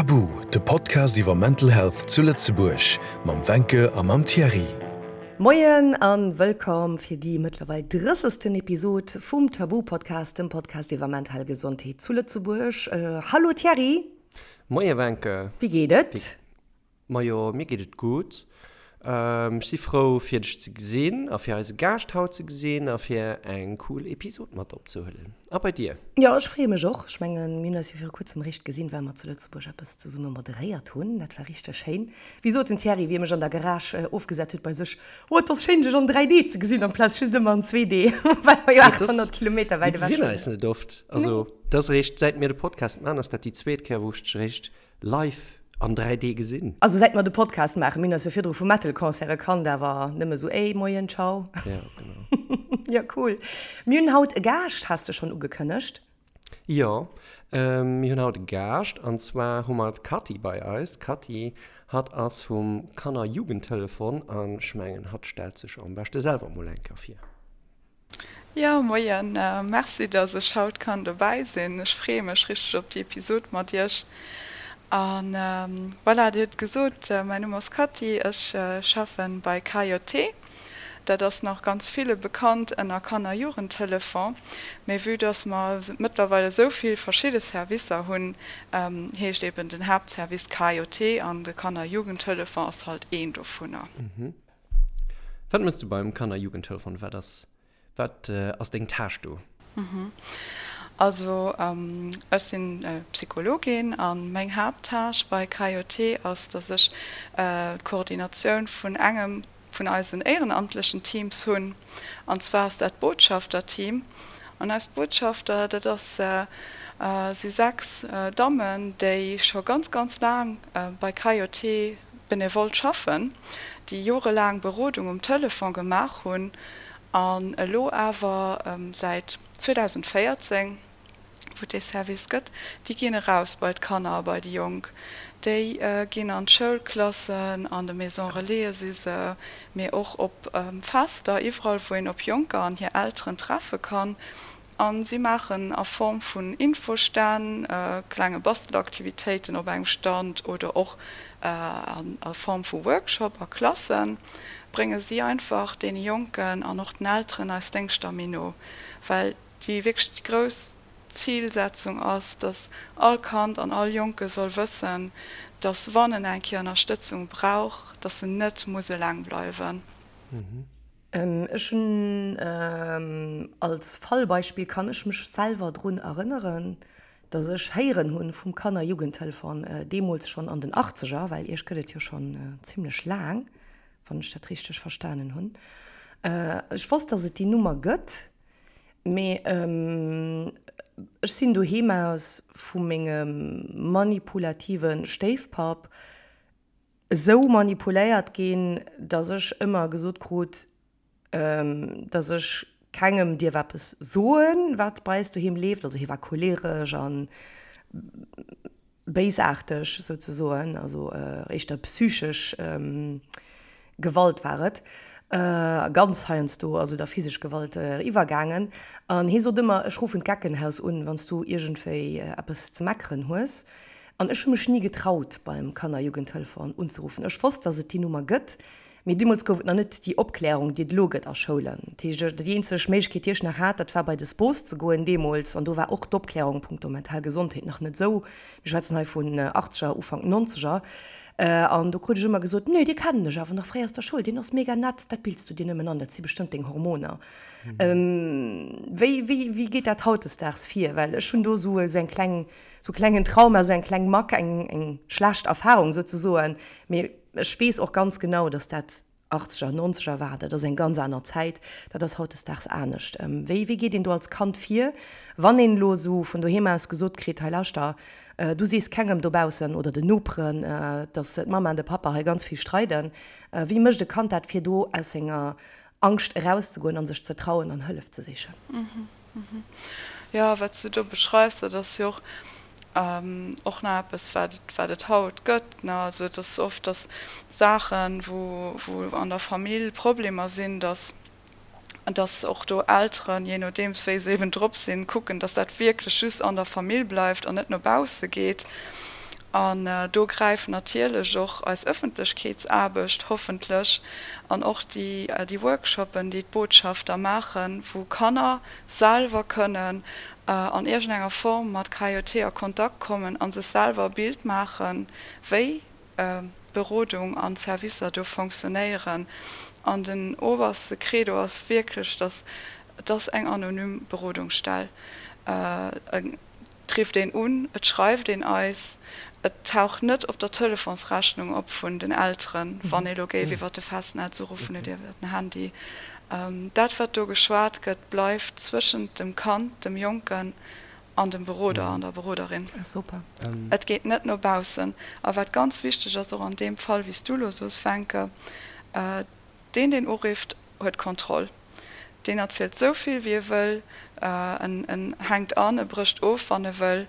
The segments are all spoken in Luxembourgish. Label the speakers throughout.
Speaker 1: Tabu, de Podcast iwwer Mental Health zu Lëtzebuerg mam Wencke a mam Thierry.
Speaker 2: Moien an wëllkomm fir déi mëttlerweil drëssegsten Episod vum Tabu Podcast, dem Podcast iwwer mental Gesondheet zu Lëtzebuerg. Hallo Thierry!
Speaker 3: Moie Wencke!
Speaker 2: Wéi geet et?
Speaker 3: Majo, mir geet et gutt. Ech si frou fir dech ze gesinn a fir eise Gaascht haut ze gesinn a fir eng cool Episod mat opzehuelen. A bei dir?
Speaker 2: Jo, ech freeë mech och. Ech mengen, mir hunn eis jo viru kuerzem eréischt gesinn, well mer zu Lëtzebuerg eppes zesumme moderéiert hunn. Dat war richteg schéin. Wéi sot den Thierry, wéi e mech an der Garage ofgesat huet bei sech, Oh, et ass schéin, dech an 3D ze gesinn amplaz just ëmmer an 2D, well mer jo 800 Kilometer wäit
Speaker 3: ewech
Speaker 2: wunnen.
Speaker 3: Mir gesinn eis net oft. Also, dat ass eréischt, säit mir de Podcast maachen, ass dat déi zweet Kéier, wou ech dech eréischt Live an 3D gesinn.
Speaker 2: Also säit mer de Podcast maachen, mir hunn eis jo virdru vu Metal-Concerte kannt, awer nëmme sou ey, moien, ciao.
Speaker 3: Ja, genau.
Speaker 2: Ja, cool. Mir hunn haut e Gaascht, has de schonn ugekënnegt.
Speaker 3: Jo, mir hunn haut e Gaascht an zwar hu mer d'Cathy bei eis. D'Cathy, hatt ass vum Kanner-Jugendtelefon an ech mengen, hatt stellt sech am beschte selwer mol eng Kéier vir.
Speaker 4: Jo, moien. Merci, dass ech haut kann dobäi sinn. Ech freeë mech richteg op déi Episod mat iech. A voilà, Dir hutt gesot, mäin Numm ass Cathy, ech schaffen bei KJT. Dat ass nach ganz ville bekannt ënner Kanner-Jugendtelefon. Mee vue dass mer mëttlerweil esou vill verschidde Servicer hunn, heescht eben den Haaptservice KJT an de Kanner-Jugendtelefon ass halt een dovunner.
Speaker 3: Wat mëss du beim Kanner-Jugendtelefon? Wat ass, wat ass deng Tâche do?
Speaker 4: Also ech sinn Psychologin a meng Haapttâche bei KJT ass, dass ech d'Koordinatioun vun engem vun eisen éierenamtlechen Teams hunn. An zwar ass dat d'Botschafterteam. An eis Botschafter, dat ass, si 6 Dammen, déi scho ganz, ganz laang bei KJT benevol schaffen, déi jorelaang Berodung um Telefon gemaach hunn an elo awer säit 2014, wou et dee Service gëtt, déi ginn eraus bei d'Kanner a bei déi Jonk. Déi ginn an d'Schoulklassen, an de Maisons Relaisen si se, mee och op Fester, iwwerall wou een op Jonker an hir Elteren treffe kann. A si maachen a Form vun Infostänn, klenge Bastelaktivitéiten op engem Stand oder och a Form vu Workshop a Klassen, brénge si einfach deene Jonken an och den Elteren eis Déngschter méi no. Well déi wierklech déi grouss Zilsetzung ass, dass all Kand an all Jonke soll wëssen, dass wann en eng Kéier Ënnerstëtzung brauch, dass en net muss eleng bleiwen.
Speaker 2: Ech hunn als Fallbeispill kann ech mech selwer drun erënneren, datt ech héieren hunn vum Kanner-Jugendtelefon, deemools schonn an den Achtzeger, well Iech gëtt et jo schonn zimlech laang, wann ech dat richteg verstanen hunn. Ech wosst, datt et déi Nummer gëtt, mee ech sinn doheem aus vu mengem manipulative Stéifpapp esou manipuléiert ginn, dass ech ëmmer gesot krut, dass ech kengem dierf eppes soen, wat bei eis doheem leeft. Also hie war choleresch a béisaarteg souzesoen, also éischter psychesch Gewalt war et, ganz heiansdo ass et a physesch Gewalt iwwergaangen. An hie sot ëmmer, ech ruffen d'Geckenhaus un, wann s du iergendwéi eppes ze meckeren hues. An ech hu mech ni getraut, beim Kanner-Jugendtelefon unzeruffen. Ech wosst, dass et déi Nummer gëtt, mee deemools gouf et nach net déi Opklärung, déi et elo gëtt a Schoulen. Dat heescht, déi eenzeg Méiglechkeet, déi ech nach hat, dat war bei de SPOS ze goen deemools. An do war och d'Opklärung punkto mental Gesondheet nach net esou. Mir schwätzen hei vun Achtzeger, Ufank Nonzeger. An do krut ech ëmmer gesot, Nee, dee kennen ech awer nach fréier aus der Schoul, deen ass mega nett, dat bills du dir nëmmen an, dat si bestëmmt deng Hormoner. Wéi, wéi, wéi geet dat hautdesdaags vir? Well ech hunn do esou eng kleng Sou klengen Trauma, sou eng kleng Mack, eng eng schlecht Erfahrung souzesoen. Mee ech weess och ganz genau, dass dat Achtzeger, Nonzeger war. Dat ass eng ganz aner Zäit. Dat ass hautdesdaags anescht. Wéi wéi geet een do als Kand vir, wann een elo esou vun doheem aus gesot kritt, hei lauschter, du sees kengem dobaussen oder den Noperen, dass d'Mamma an de Pappa hei ganz vill streiden. Wéi mécht e Kand dat, fir do aus senger Angscht erauszegoen a sech ze trauen an Hëllef ze sichen?
Speaker 4: Jo, wat s du do beschreifs, dat ass jo och och nach eppes, wat et, wat et haut gëtt, ne. Also et ass oft, datt Saachen, wou, wou an der Famill Problemer sinn, datt, datt och do Elteren, jee nodeems wéi se eben drop sinn, kucken, datt dat wierklech just an der Famill bleift an net no bausse geet. An do gräift natierlech och eis Ëffentlechkeetsaarbecht hoffentlech an och déi Workshoppen, déi d'Botschafter maachen, wou Kanner selwer kënnen an iergendenger Form mat KJT a Kontakt kommen a sech selwer e Bild maachen, wéi Berodung an Servicer do fonctionnéieren. An den oberste Credo ass wierklech, dass et ass eng anonym Berodungsstell. Et rifft een un, et schreift een eis, et taucht net op der Telefonsrechnung op vun den Elteren, wann ee lo géif iwwer de Festnetz uruffen oder iwwer den Handy. Dat, wat do geschwat gëtt, bleift zwëschent dem Kand, dem Jonken an dem Beroder an der Beroderin. Et geet net no baussen. A wat ganz wichteg ass, och an deem Fall, wéi s du elo soos, Wencke, Deen, deen urifft, huet d'Kontroll. Deen erzielt sou vill, wéi e wëll, en en hänkt an, e brécht of, wann e wëll.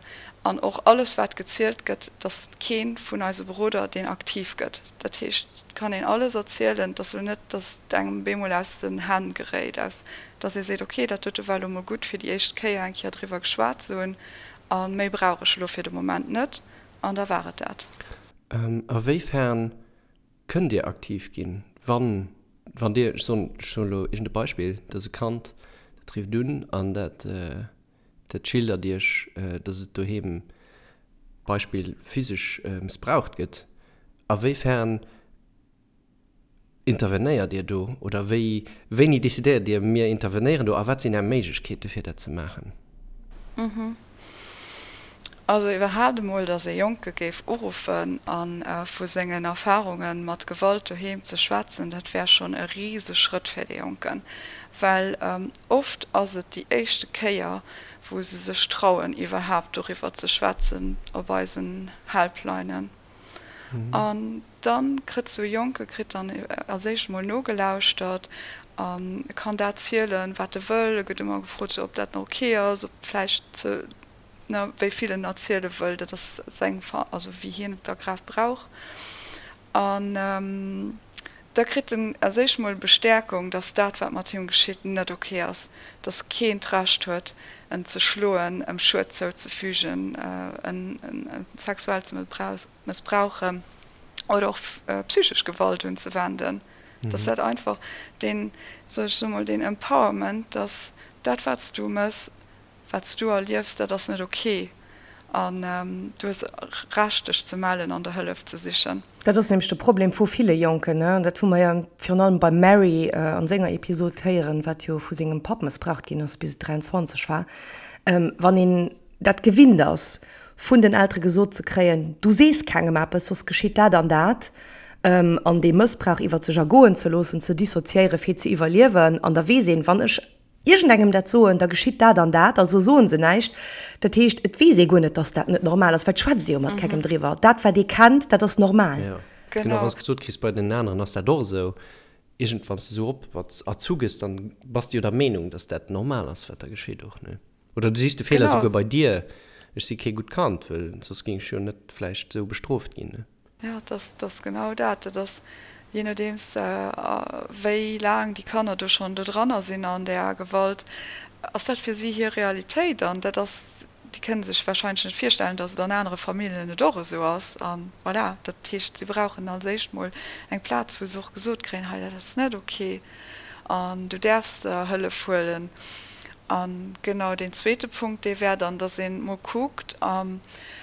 Speaker 4: An och alles, wat gezielt gëtt, et ass kee vun eise Beroder, deen aktiv gëtt. Dat heescht, et kann een alles erzielen. Et ass elo net, datt et engem bemol aus den Hänn geréit, aus datt ee seet, ok, dat dote war elo mol gutt, fir déi éischt Kéier eng Kéier driwwer geschwat ze hunn, a méi brauch ech elo fir de Moment net, an da war et dat.
Speaker 3: A wéifern Kënnt Dir aktiv ginn, wann, wann Dir, ech soen, ech soen elo iergend e Beispill, dass e Kand, dat rifft un an dat, dat schildert Iech, dass et doheem, Beispill, physesch mëssbraucht gëtt. A wéi fern intervenéiert Dir do oder wéi, wéini decidéiert Dir, mir intervenéieren do a wat sinn Är Méiglechkeete fir dat ze maachen?
Speaker 4: Also iwwerhaapt emol, datt ee Jonke géif uruffen a vu sengen Erfarunge mat Gewalt doheem ze schwätzen, dat wär schonn e Riseschrëtt fir dee Jonken. Well oft ass et déi éischte Kéier, wou se sech trauen, iwwerhaapt doriwwer ze schwätzen op eisen Helplinen. An da kritt esou e Jonke kritt dann als éischt emol nogelauschtert a kann dat zielen, wat e wëll. E gëtt ëmmer gefrot, ob dat nach ok ass, ob vläicht ze, ne, wéi vill en erziele wëll, dat ass seng, also wéi hien et da grad brauch. An da kritt en als éischt mol Bestäerkung, dass dat, wat mat him geschitt, net ok ass, dass keen d'Recht huet, en ze schloen, em Schued zouzefügen, en sexuell ze mëssbrauchen oder och psychesch Gewalt unzewenden. Dass dat einfach deen, soll ech soe mol, deen Empowerment, dass dat, wat s du mëss, Wat s du erliefs, dat ass net ok an du hues Recht dech ze mellen an der Hëllef ze sichen.
Speaker 2: Dat ass nämlech de Problem vu ville Jonken, an dat hu mer jo virun allem beim Mary an senger Episod héieren, wat jo vu sengem Papp mëssbraucht ginn ass bis et 23 war. Wann een dat gewinnt ass, vun den Eltere gesot ze kréien, du sees kengem eppes, soss geschitt dat an dat, an dee Mëssbrauch iwwer sech ergoen ze loossen, ze dissoziéieren, fir ze iwwerliewen, an da weess een, wann ech iergendengem dat soen, da geschitt dat an dat, also soen se näischt. Dat heescht, et weess ee guer net, dass dat net normal ass, well et schwätzt ee jo mat kengem driwwer. Dat, wat ee kennt, dat ass normal.
Speaker 3: Jo, genau, wann s gesot kriss, bei den aneren ass dat och esou, iergend wann s de esou op erzu gëss, dann bass de jo der Meenung, dass dat normal ass, wat da geschitt och, ne? Oder du sichs de Feeler esouguer bei dir, ech si kee gutt Kand, well soss géing ech jo net vläicht esou bestrooft ginn, ne?
Speaker 4: Jo, et ass genau dat. Et ass, jee nodeems wéi laang déi Kanner do schonn do dranner sinn an där Gewalt, ass dat fir si hir Realitéit. An dat ass, déi kënne sech warscheinlech net virstellen, datt et an anere Familljen et och esou ass. A voilà, dat heescht, si brauchen als éischt mol eng Plaz, wou se och gesot kréien, hei dat ass net ok an du däerfs der Hëllef huelen. A genau deen zweete Punkt, dee wär dann, datt ee mol kuckt,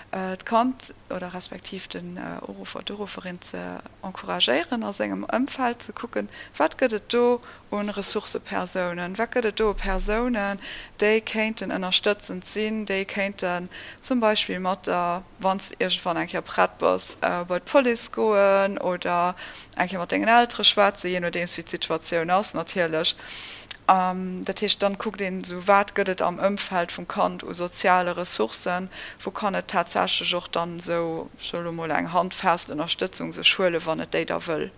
Speaker 4: d'Kand oder respektiv den Uruffer, d'Urufferin ze encouragéieren a sengem Ëmfeld ze kucken, wat gëtt et do u Ressourcëpersounen, wat gëtt et do u Persounen, déi kéinten ënnerstëtzend sinn, déi kéinten zum Beispill mat der, wann s de iergendwann eng Kéier prett bass, bei d'Police goen oder eng Kéier mat dengen Eltere schwätzen, jee nodeems wéi d'Situatioun ass natierlech. Dat heescht, dann kuckt een esou, wat gëtt et am Ëmfeld vum Kand u soziale Ressourcen, wou kann et tatsächlech och dann esou, ech soe lo mol, eng handfest Ënnerstëtzung sech huelen, wann et déi da wëll.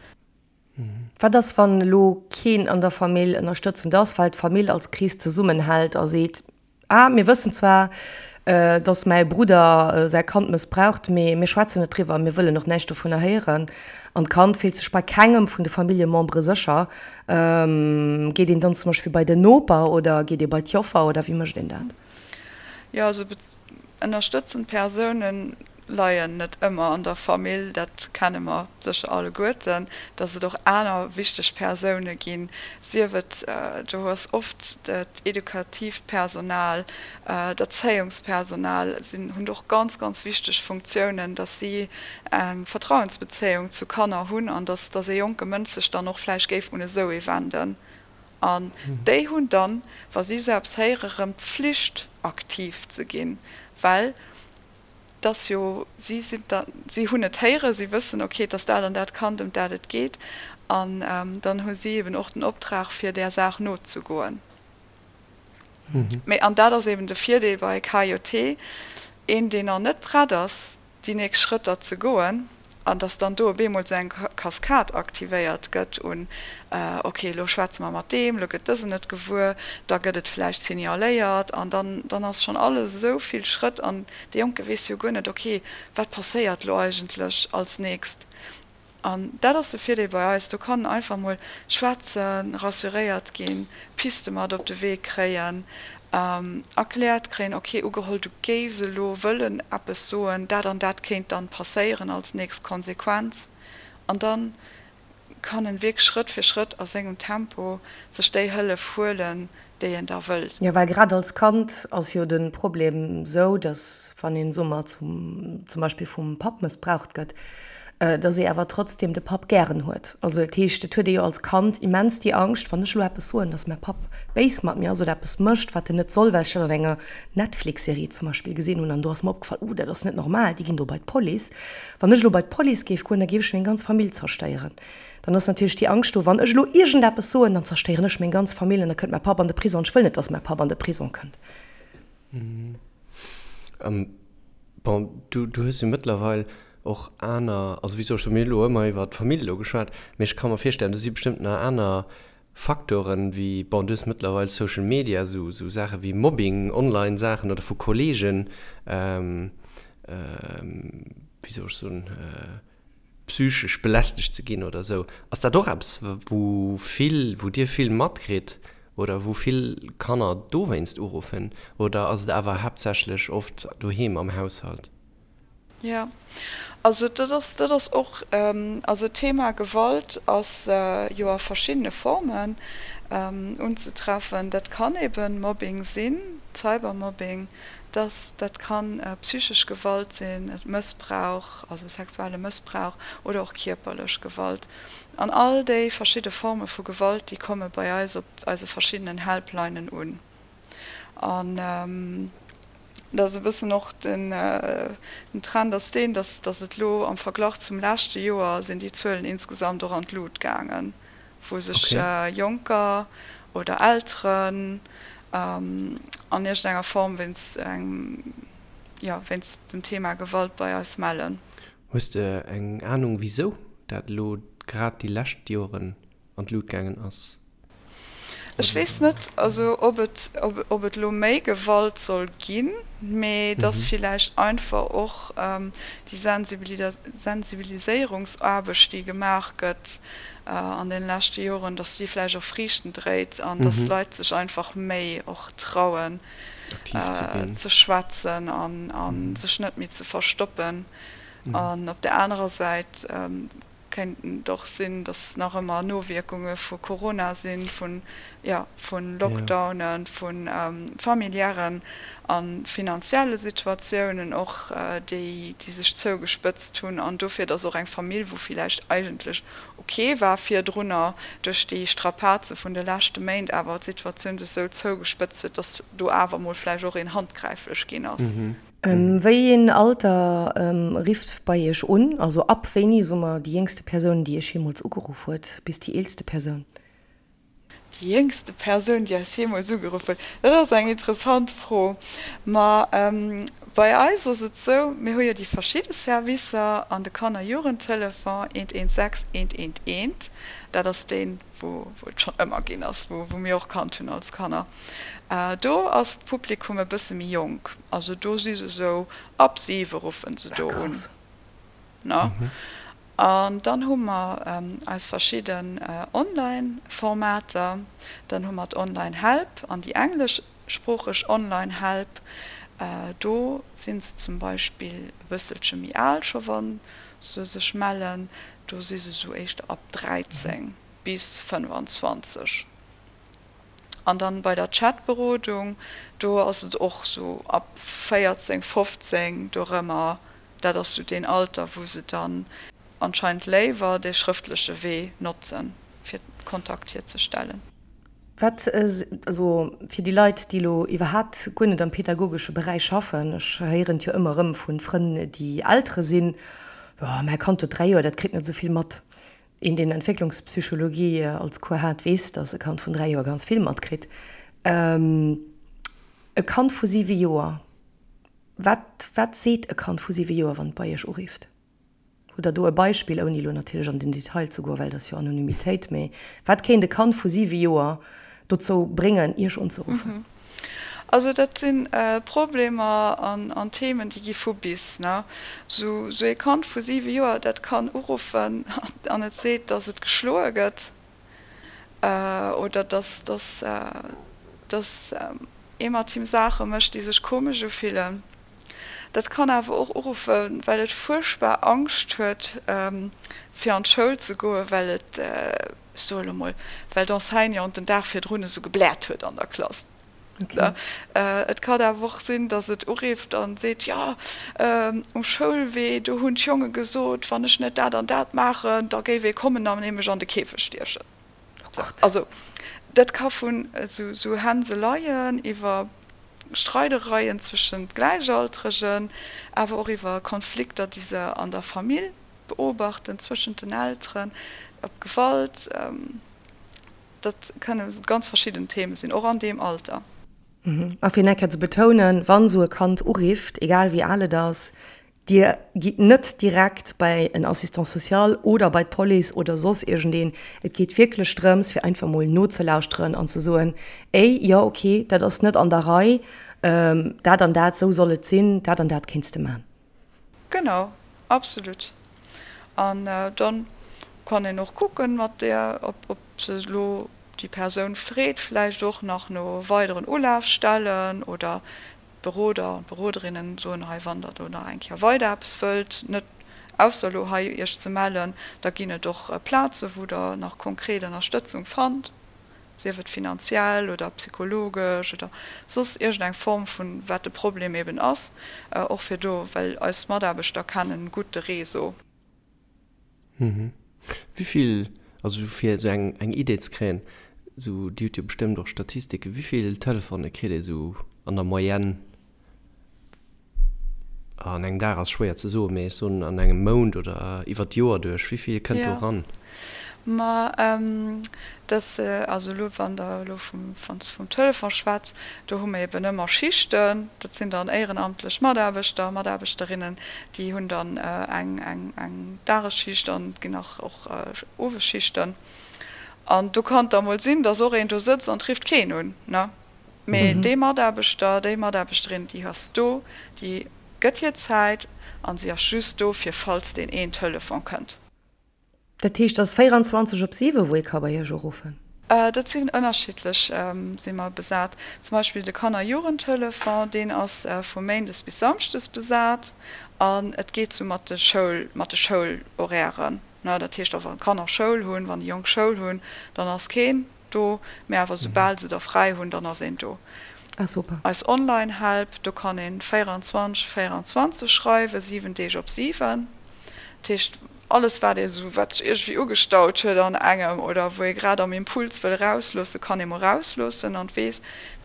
Speaker 2: Wat ass, wann elo keen an der Famill ënnerstëtzend ass, well d'Famill als Krees zesummenhält a seet, Ah, mir wëssen zwar, dass mäi Brudder säi Kand mëssbraucht, mee mir schwätzen net driwwer, mir wëllen och näischt dovunner héieren. An d'Kand fillt sech bei kengem vun de Familljemembere sécher. Geet een dann zum Beispill bei den Noper oder geet ee bei d'Joffer oder wéi mécht een dat?
Speaker 4: Jo, also ënnerstëtzend Persounen. leien net ëmmer an der Famill, dat kenne mer sécher alleguerten, dass et och aner wichteg Persoune ginn, sief et, do ass oft d'edukatiivt Personal, d'Erzéiungspersonal sinn, hunn och ganz, ganz wichteg Funktiounen, dass si eng Vertrauensbezéiung zu Kanner hunn an dass, dass ee jonke Mënsch sech dann och vläicht géif un esou ee wenden. An déi hunn dann, wa si esou eppes héieren, erëm d'Pflicht aktiv ze ginn, well dass jo, si sinn da, si hunn et héieren, si wëssen, okay, et ass dat an dat Kand, ëm dat et geet, an dann hu si eben och den Optrag, fir där Saach nozegoen. Mee, an dat ass eben de Virdeel bei KJT, een, deen nach net prett ass, déi nächst Schrëtter ze goen, an dass dann do op eemol esou eng Kaskad aktivéiert gëtt un, ok, elo schwätze mer mat deem, elo gëtt dësen et gewuer, da gëtt et vläicht signaléiert an dann, dann ass schonn alles esou vill Schrëtt an dee Jonke weess jo guer net, ok, wat passéiert elo eigentlech als nächst. An dat ass de Virdeel bei eis, do kann en einfach mol schwätzen, rassuréiert ginn, Piste mat op de Wee kréien, erkläert kréien, ok, ugeholl du géifs elo wëllen eppes soen, dat an dat kéint dann passéieren als nächst Konsequenz. An dann kann en wierklech Schrëtt fir Schrëtt a sengem Tempo sech déi Hëllef huelen, déi en da wëllt.
Speaker 2: Jo, well grad als Kand ass jo de Problem sou, dass wann een, soe mer, zum zum Beispill vum Papp mëssbraucht gëtt, dass ee awer trotzdem de Papp gären huet. Also dat heescht, et huet ee jo als Kand immens déi Angscht, wann ech elo eppes soen, dass mäi Papp béis mat mir ass oder eppes mécht, wat en net soll, well ech dat an enger Netflix-Serie zum Beispill gesinn hunn an do ass mer opgefall, uh, dat ass net normal, déi ginn do bei d'Police. Wann ech elo bei d'Police géif goen, da géif ech meng ganz Famill zerstéieren. Dann ass natierlech déi Angscht do, wann ech elo iergendeppes soen, dann zerstéieren ech meng ganz Famill an da kënnt mäi Papp an de Prison. Ech wëll net, dass mäi Papp an de Prison kënnt.
Speaker 3: Bon, du, du hues jo mëttlerweil och aner, also wéi soll ech soen, mir hu elo ëmmer iwwer d'Famill elo geschwat, mee ech ka mer virstellen, do si bestëmmt nach aner Faktoren wéi, bon, du hues mëttlerweil Social Media, esou, esou Saache wéi Mobbing, Online-Saachen oder vu Kolleegen, wéi soll ech soen, psychesch belästegt ze ginn oder esou. Ass dat och eppes, wou vill, wou Dir vill matkritt oder wou vill Kanner dowéinst uruffen oder ass et awer haaptsächlech oft doheem am Haushalt?
Speaker 4: Jo, also dat ass, dat ass och, also d'Thema Gewalt ass jo a verschiddene Formen unzetreffen. Dat kann eben Mobbing sinn, Cybermobbing, Dass dat kann psychesch Gewalt sinn, Mëssbrauch, also sexuelle Mëssbrauch oder och kierperlech Gewalt. An all déi verschidde Forme vu Gewalt, déi komme bei eis op eise verschiddenen Helplinen un. An dat ass e bëssen och den Trend ass deen, dass dass et elo am Verglach zum leschte Joer sinn déi Zuelen insgesamt och an d'Lut gaangen. wou sech Jonker oder Elteren an iergendenger Form wéinst engem, jo, wéinst dem Thema Gewalt bei eis mellen.
Speaker 3: Hues de eng Anung wisou dat elo grad déi lescht Joren an d'Lut gaangen ass?
Speaker 4: Ech weess net, also ob et, ob et elo méi Gewalt soll ginn, mee dass villäicht einfach och déi Sensibiliséierungsaarbecht, déi gemaach gëtt an deene leschte Joren, dass déi vläicht och Friichten dréit an dass d'Leit sech einfach méi och trauen ze schwätzen a sech net méi ze verstoppen. An op där anerer Säit Kéint et och sinn, datt nach ëmmer Nowierkunge vu Corona sinn, vun, jo, vu Lockdownen, vu familiären a finanzielle Situatiounen och, déi, déi sech zougespëtzt hunn an dofir, datt och eng Famill, wou villäicht eigentlech ok war virdrunner, duerch déi Strapaze vun de leschte Méint awer d'Situatioun sech sou zougespëtzt huet, datt do awer mol vläicht och een handgräiflech ginn ass.
Speaker 2: Wéi een Alter rifft bei Iech un? Also ab wéini, soe mer, déi jéngste Persoun, déi Iech jeemools ugeruff huet, bis déi eelste Persoun?
Speaker 4: Déi jéngste Persoun, déi eis jeemools ugeruff huet, dat ass eng interessant Fro. Ma bei eis ass et esou, mir hu jo déi verschidde Servicer an de Kanner-Jugendtelefon 116 111, dat ass deen, wou et schonn ëmmer ginn ass, wou mir och kannt hunn als Kanner. Do ass d'Publikum e bësse méi jonk, also do si se esou ab siwe ruffen se do un. An dann hu mer eis verschidden Online-Formater, dann hu mer d'Online-Help an déi engleschsproocheg Online-Help. Do si se zum Beispill e bësselche méi al scho wa se sech mellen. Do si se sou éischter ab 13 bis 25. An dann bei der Chatberodung, do ass et och sou ab 14, 15 dorëmmer. Dat ass sou deen Alter, wou se dann anscheinend léiwer dee schrëftleche Wee notzen, fir Kontakt hierzestellen.
Speaker 2: Wat, also fir déi Leit, déi elo iwwerhaapt guer net am pedagogesche Beräich schaffen, ech héieren et jo ëmmer erëm vu Frënn, déi Eltere sinn, Jo, mäi Kand huet 3 Joer, dat kritt net esou vill mat. Een, deen Entwécklungspsychologie als Cours hat, weess, datt e Kand vun 3 Joer ganz vill matkritt. E Kand vu 7 Joer, wat, wat seet e Kand vu 7 Joer, wann et bei Iech urifft? Hutt Der do e Beispill, ouni elo natierlech an den Detail ze goen, well dat ass jo Anonymitéit, mee wat kéint e Kand vu 7 Joer dozou bréngen, Iech unzeruffen?
Speaker 4: Also dat si Problemer an Themen, déi gi vu bis. Sou ee Kand vu 7 Joer, dat kann uruffen an et seet, datt et geschloe gëtt oder datt ee mat him Saache mécht, déi sech komesch ufillen. Dat kann awer och uruffen, well et fuerchtbar Angscht huet, fir an d'Schoul ze goen, well et, ech soe lo mol, well d'Enseignante den Dag virdrun esou gebläert huet an der Klass. Et kann awer och sinn, datt et urifft a seet, Jo, um Schoulwee, do hunn d'Jonge gesot, wann ech net dat an dat maachen, da géif ee kommen an ee mech an de Käfeg stiechen. Also dat ka vun esou Hänseleien iwwer Streidereien zwëschent Gläichaltregen, awer och iwwer Konflikter, déi se an der Famill beobachten, zwëschent den Elteren, op Gewalt, dat kënne ganz verschidden Theme sinn, och an deem Alter.
Speaker 2: A fir nach eng Kéier ze betounen, Wann esou e Kand urifft, egal wéi al et ass, Dir gitt net direkt bei en Assistant social oder bei d'Police oder soss iergendeen. Et geet wierklech drëms, fir einfach mol nozelauschteren an ze soen, Ey, jo, okay, dat ass net an der Rei, dat an dat, esou soll et sinn, dat an dat kéints de man.
Speaker 4: Genau, absolut. An dann kann een och kucken mat där, ob se elo déi Persoun freet vläicht och nach no weideren Ulafstellen oder D'Beroder an d'Beroderinnen soen hei, wann der do nach eng Kéier weider eppes wëllt, net ausser elo hei iech ze mellen, da ginn et och Plaze wou der nach konkret Ënnerstëtzung fannt, sief et finanziell oder psychologesch oder soss iergend eng Form vun wat de Problem eben ass, och fir do, well eis Mataarbechter kennen gutt de Réseau.
Speaker 3: Wivill, also fir esou eng eng Idee ze kréien, esou Dir hutt jo bestëmmt och Statistiken, wivill Telefone kritt ee esou an der Moyenne an engem Dag ass schwéier ze soen, mee ech soen an engem Mount oder iwwer d'Joer duerch, wivill kënnt do eran?
Speaker 4: Ma dat, also elo wann Der elo vum, wann s de vum Telefon schwätz, do hu mer eben ëmmer Schichten, dat sinn dann éierenamtlech Mataarbechter, Mataarbechterinnen, Déi hunn dann eng eng Dagesschicht an et ginn nach och Owesschichten. An do kann et da mol sinn, datt och een do sëtzt an et rifft keen un, ne? Mee dee Mataarbechter, déi Mataarbechterin, déi ass do, déi gëtt hir Zäit an si ass just do, fir falls deen een Telefon kënnt.
Speaker 2: Dat heescht, et ass 24 op 7, wou ee ka bei Iech uruffen?
Speaker 4: Dat sinn ënnerschiddlech, si mer besat. Zum Beispill de Kanner-Jugendtelefon, deen ass vu méindes bis samschdes besat an et geet sou mat de Schoul, mat de Schoulhorairen. Dat heescht och wann d'Kanner Schoul hunn, wann déi Jonk Schoul hunn, dann ass keen do, mee awer soubal se da fräi hunn, dann ass een do.
Speaker 2: Ah super.
Speaker 4: Eis Online-Help, do kann een 24, 24 schreiwen, 7 Deeg op 7. Dat heescht, alles wat ee sou, wat sech iergendwéi ugestaut huet an engem oder wou ee grad am Impuls wëll erausloossen, kann ee mol erausloossen an weess,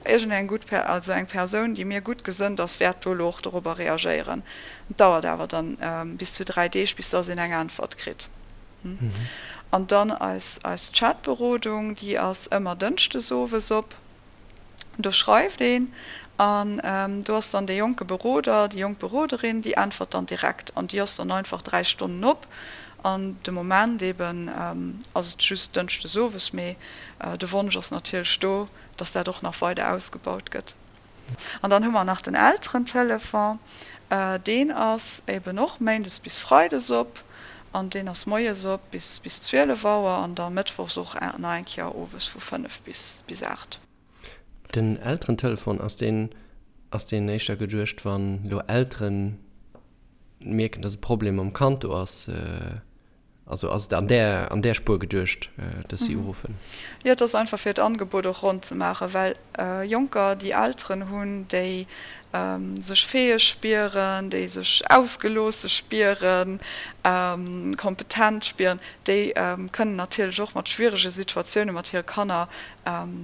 Speaker 4: iergendeng gutt Per, also eng Persoun, déi mir gutt gesënnt ass, wäert do elo och dorobber reagéieren. Et dauert awer dann bis zu 3 Deeg, bis dass een eng Äntwert kritt. An dann eis eis Chatberodung, déi ass ëmmer dënschdes owes op. Do schreift een an do ass dann dee jonke Beroder, déi jonk Beroderin, déi äntwert dann direkt an déi ass dann einfach 3 Stonnen op. An de Moment eben ass et just dënschdes owes, mee de Wonsch ass natierlech do, dass dat och nach weider ausgebaut gëtt. An dann hu mer nach den Elterentelefon, deen ass eben och méindes bis freides op an deen ass moies op bis bis 12 Auer an da mëttwochs och nach eng Kéier owes vu 5 bis bis 8.
Speaker 3: Den Elterentelefon, ass deen. Ass deen éischter geduecht, wann elo Elteren mierken, dass e Problem mam Kand do ass? Also ass et an där, an där Spuer geduecht, dass si uruffen?
Speaker 4: Jo, et ass einfach fir d'Angebot och ronn ze maachen, well Jonker, déi Elteren hunn, déi sech fäeg spieren, déi sech ausgeloosse spieren, kompetent spieren, déi kënnen natierlech och mat schwierege Situatioune mat hire Kanner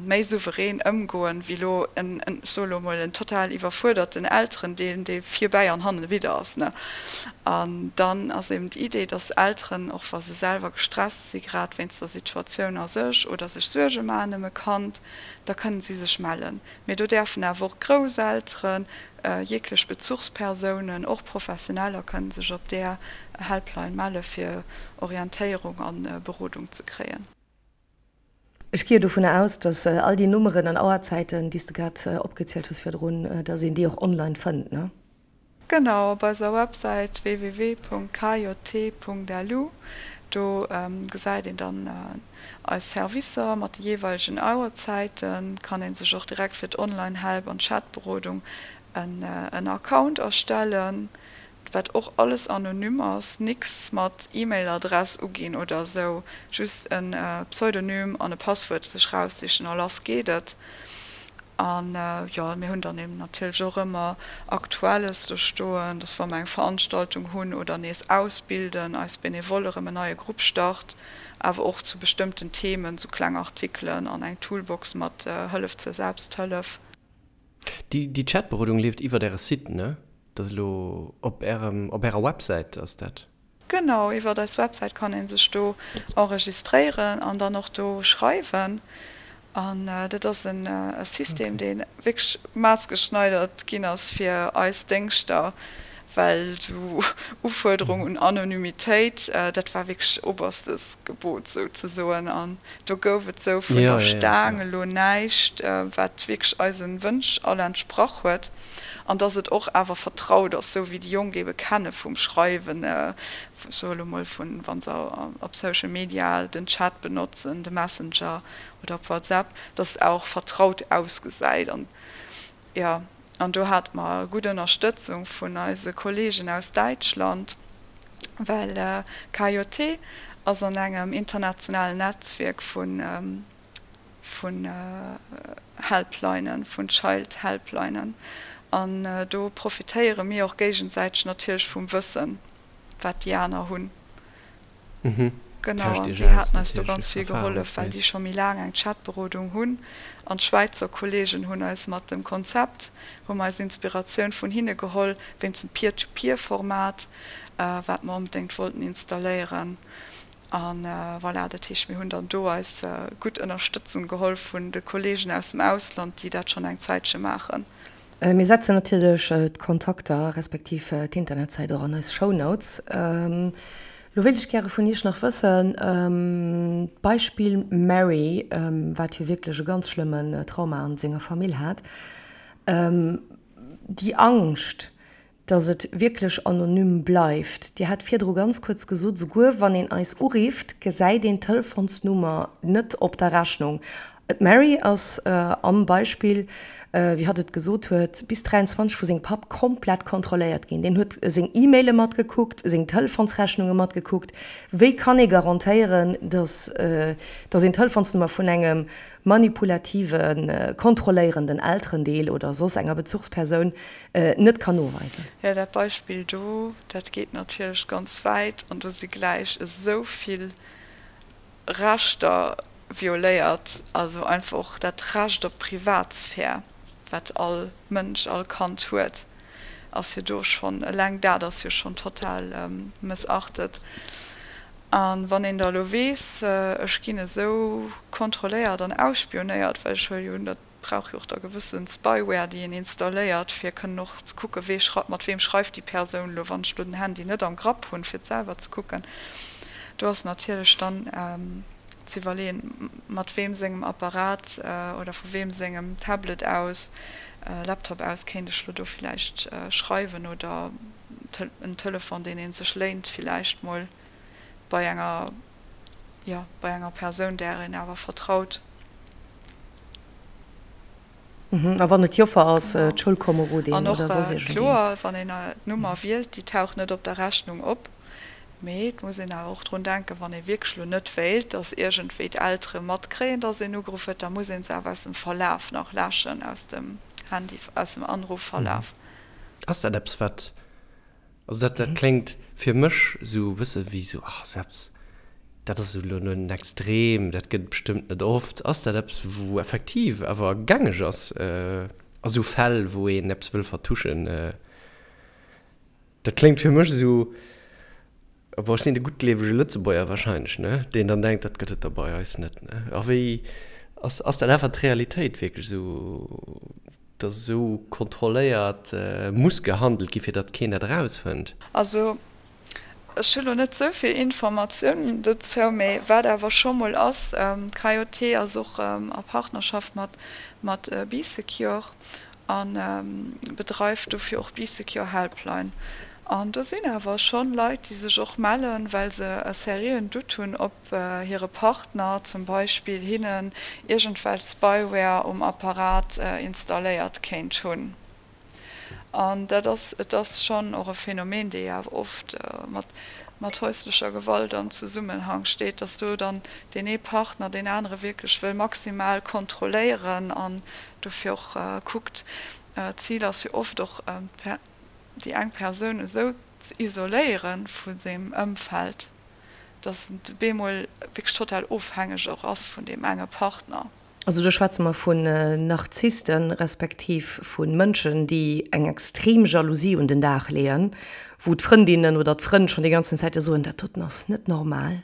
Speaker 4: méi souverän ëmgoen, wéi elo en, ech soe elo emol, en total iwwerfuerderten Elterendeel, dee virbäi an hannen ewidder ass. Ne? An dann ass eben d'Idee, dass Elteren, och wa se selwer gestresst si grad wéinst der Situatioun a sech oder sech Suerge maachen ëm e Kand, da kënnen si sech mellen. Mee do däerfen awer och Grousselteren, jeeglech Bezuchspersounen, och Professioneller kënnen sech op där Helpline melle fir Orientéierung a Berodung ze kréien.
Speaker 2: Ech gi jo dovunner aus, dass all déi Nummeren an Auerzäiten, déi s de grad opgezielt hues virdrun, dass een déi och online fënnt, ne?
Speaker 4: Genau, op eiser Websäit www.kjt.lu, do gesäit een dann eis Servicer mat de jeeweilegen Auerzäiten. Kann een sech och direkt fir d'Online-Help an d'Chatberodung en Account erstellen. Wat och alles anonym ass, nix mat E-Mail-Adress uginn oder esou, just en Pseudonym an e Passwuert sech raussichen a lass geet et. An jo, mir hunn dann eben natierlech och ëmmer Aktuelles do stoen, dass wa mer eng Veranstaltung hunn oder nees ausbilden, eis Benevole erëm en neie Grupp start, awer och zu bestëmmten Themen, sou kleng Artikelen an eng Toolbox mat Hëllef zur Selbsthëllef.
Speaker 3: Déi Chatberodung leeft iwwert äre Site, ne? Dat ass elo op ärem, op ärer Websäit ass dat?
Speaker 4: Genau, iwwert eis Websäit kann ee sech do enregistréieren an dann och do schreiwen. An dat ass e System, dee wierklech maßgeschneidert ginn ass fir eis Déngschter, well esou Ufuerderung un Anonymitéit, dat war wierklech oberstes Gebot souzesoen. An do gouf et esou vun der Staang elo näischt, wat wierklech eise Wënsch all entsprach huet. An dass et och awer vertraut ass, esou wéi déi Jonk eebe kenne vum Schreiwen, ech soe elo mol vun, wa se op Social Media den Chat benotzen, de Messenger oder op WhatsApp, dass et och vertraut ausgesäit. An jo, an do hate mer gutt Ënnerstëtzung vun eise Kolleegen aus Däitschland, well KJT ass an engem internationalen Netzwierk vun vun Helplinen, vun Child Helplinen. An do profitéiere mir och géigesäiteg natierlech vum Wëssen, wat déi aner hunn. Genau, an déi haten eis do ganz vill gehollef, well déi scho méi laang eng Chatberodung hunn. An d'Schwäizer Kolleegen hunn eis mat dem Konzept, hu mer eis Inspiratioun vun hinne geholl, wéinst dem Peer-to-Peer-Format, wat mer onbedéngt wollten installéieren. A voilà, dat heescht, mir hunn dann do eis gutt Ënnerstëtzung geholl vun de Kolleegen aus dem Ausland, déi dat schonn eng Zäitche maachen.
Speaker 2: Mir setzen natierlech d'Kontakter respektiv d'Internetsäit och an eis Shownotes. Lo wéilt ech gäre vun Iech nach wëssen, d'Beispill Mary, wat jo wierklech e ganz schlëmmen Trauma an senger Famill hat, déi Angscht, dass et wierklech anonym bleift. Dir hat virdru ganz kuerz gesot, souguer wann een eis urifft, gesäit een d'Telefonsnummer net op der Rechnung. D'Mary ass am Beispill, wéi hatt et gesot huet, bis 23 vu sengem Papp komplett kontrolléiert ginn. Deen huet seng E-Maile matgekuckt, seng Telefonsrechnunge matgekuckt. Wéi kann ee garantéieren, dass dass een d'Telefonsnummer vun engem manipulativen, kontrolléierenden Elterendeel oder soss enger Bezuchspersoun net kann noweisen.
Speaker 4: Jo, dat Beispill do, dat geet natierlech ganz wäit an do si gläich esou vill Rechter violéiert, also einfach och dat Recht op Privatsphär, wat all Mënsch, all Kand huet, ass jo do schonn, eleng dat ass jo schonn total mëssachtet. A wann een da elo weess, ech ginn esou kontrolléiert an ausspionéiert, well ech huele jo un, datt brauch jo och da gewëssen Spyware déi een installéiert fir kënnen och ze kucken wee schrei mat weem schreift déi Persoun elo wann ech elo den Handy net am Grapp hunn fir et selwer ze kucken. Do ass natierlech dann ze iwwerleeën mat weem sengem Apparat oder vu weem sengem Tablet aus, Laptop aus kéint ech elo do villäicht schreiwen oder en Telefon deen ee sech léint villäicht mol bei enger jo bei enger Persoun där een awer vertraut.
Speaker 2: A wann et d'Joffer ass, d'Schoulkomerodin
Speaker 4: oder soss iergendeen. An och kloer, wann een d'Nummer wielt, déi taucht net op der Rechnung op. Mee et muss een awer och drun denken, wann ee wierklech elo net wéilt, datt iergendwéi d'Eltere matkréien, datt een ugeruff huet, da muss ee se awer aus dem Verlaf nach läschen, aus dem Handy, aus dem Anrufverlaf.
Speaker 3: Ass dat eppes, wat, also dat, dat kléngt fir mech esou e bësse wéi esou, ach, ass eppes, dat ass elo en Extrem, dat gëtt et bestëmmt net oft. Ass dat eppes, wou effektiv awer gängeg ass a sou Fäll, wou een eppes wëll vertuschen? Dat kléngt fir mech esou, bon, ech sinn de guttgleewege Lëtzebuerger wahrscheinlech, ne, deen dann denkt, dat gëtt et da bei eis net, ne. A wéi, ass, ass dat einfach d'Realitéit wierklech esou, datt esou kontrolléiert muss gehandelt gi fir datt keen dat erausfënnt?
Speaker 4: Also, ech hu lo net esou vill Informatiounen dozou, mee wat awer scho mol ass, d'KJT ass och a Partnerschaft mat, mat Bee Secure a bedreift dofir och d'Bee Secure Helpline. An do sinn awer schonn Leit, déi sech och mellen, well se e seriöen Doute hunn, ob hire Partner zum Beispill hinnen iergendwelch Spyware um Apparat installéiert kéint hunn. An dat ass, et ass schonn och e Phänomen, dee jo awer oft mat mat häuslecher Gewalt am Zesummenhang steet, dass do dann deen ee Partner deen anere wierklech wëll maximal kontrolléieren an dofir och kuckt. D'Zil ass jo oft och, déi eng Persoun esou ze isoléiere vu sengem Ëmfeld, dass en bemol wierklech total ofhängeg och ass vun deem enge Partner.
Speaker 2: Also do schwätze mer vun Narzissten, respektiv vu Mënschen, déi eng extrem Jalousie un den Dag leeën, wou d'Frëndinnen oder d'Frënn schonn déi ganzen Zäite soen, dat doten ass net normal,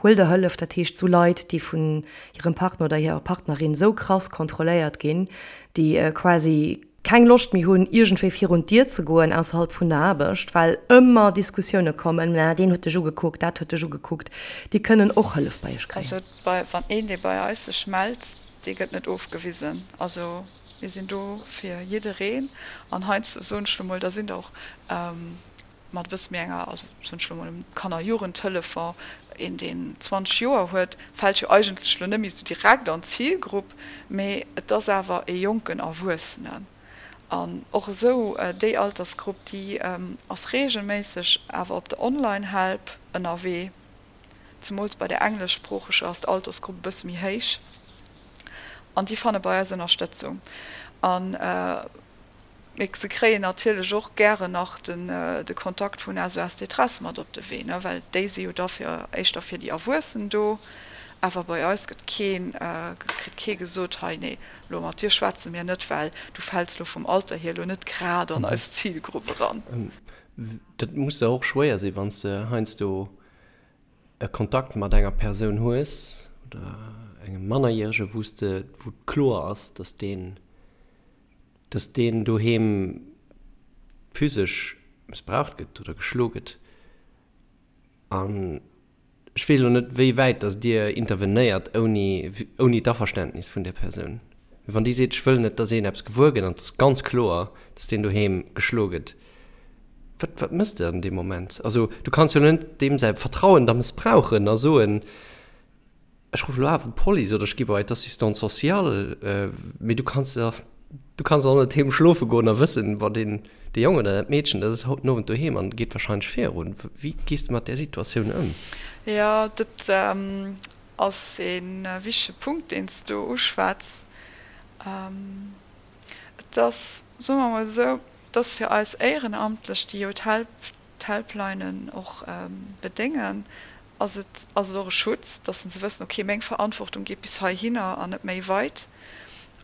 Speaker 2: huel der Hëllef. Dat heescht, sou Leit, déi vun hirem Partner oder hirer Partnerin sou krass kontrolléiert ginn, déi quasi keng Loscht méi hunn, iergendwéi virun d'Dier ze goen ausserhalb vun der Aarbecht, well ëmmer Diskussioune kommen, Mä deen huet dech ugekuckt, dat huet dech ugekuckt. Déi kënnen och Hëllef bei iech kréien.
Speaker 4: Also bei, wann een, dee bei eis sech mellt, dee gëtt net ofgewisen. Also mir sinn do fir jiddereen. An heiansdo soen ech lo mol, da sinn der och mat e bësse méi enger, also soen ech lo mol um Kanner-Jugendtelefon, een deen 20 Joer huet, fält jo eigentlech lo net méi esou direkt an d'Zilgrupp, mee et ass awer e jonken Erwuessenen. An och esou déi Altersgrupp, déi ass reegelméisseg awer op der Online-Help ënnerwee. Zemools bei der engleschsproocheger ass d'Altersgrupp e bësse méi héich an déi fanne bei eis Ënnerstëtzung. An Mee se kréien natierlech och gären nach de Kontakt vun SOS Détresse mat op de Wee, well déi si jo da fir éischter fir déi Erwuessen do. Awer bei eis gëtt keen, kritt kee gesot, hei nee, elo mat dir schwätze mir net, well du fäls elo vum Alter hier elo net grad an eis Zilgrupp eran.
Speaker 3: Dat muss der och schwéier sinn, wann s de heiansdo e Kontakt mat enger Persoun hues oder engem Mannerjärege, wou s de, wou kloer ass, datt deen, dass deen doheem physesch mëssbraucht gëtt oder geschlo gëtt. An ech weess elo net, wéi wäit dass Dir intervenéiert ouni, ouni d'Averständnis vun där Persoun. Mee wann déi seet, ech wëll net, dass een eppes gewuer gëtt an et ass ganz kloer, dass deen doheem geschlo gëtt, wat, wat méchs de an deem Moment? Also du kanns jo elo net deem säi Vertrauen da mëssbrauchen a soen, Ech ruffen elo awer d'Police oder ech gi bei d'Assistante sociale, mee du kanns jo, du kanns och net heem schlofe goen a wëssen, bon, deen, dee Jong oder dat Meedchen, dat ass haut den Owend doheem an geet wahrscheinlech virun. Wéi gees de mat där Situatioun ëm?
Speaker 4: Jo, dat ass ee wichtege Punkt, deen s de do uschwätz. Et ass, soe mer emol esou, et ass fir eis Éierenamtlech, déi jo d'Helplinen och bedéngen, ass et ass et och e Schutz, dass se wëssen, okay, meng Verantwortung geet bis heihinner an net méi weit.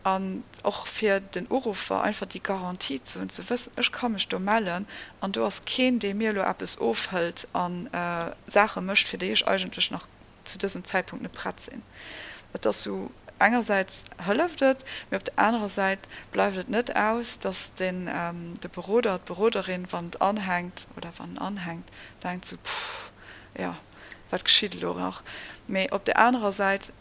Speaker 4: An och fir den Uruffer einfach déi Garantie ze hunn, ze wëssen, ech ka mech do mellen an do ass keen, dee mir elo eppes ofhëlt a Saache mécht, fir déi ech eigentlech nach zu dësem Zäitpunkt net prett sinn. Et ass sou, engersäits hëlleft et, mee op der anerer Säit bleift et net aus, dass den de Beroder, d'Beroderin, wann et anhänkt oder wann en anhänkt, denkt sou, Puh, jo, wat geschitt elo nach? Mee op där anerer Säit,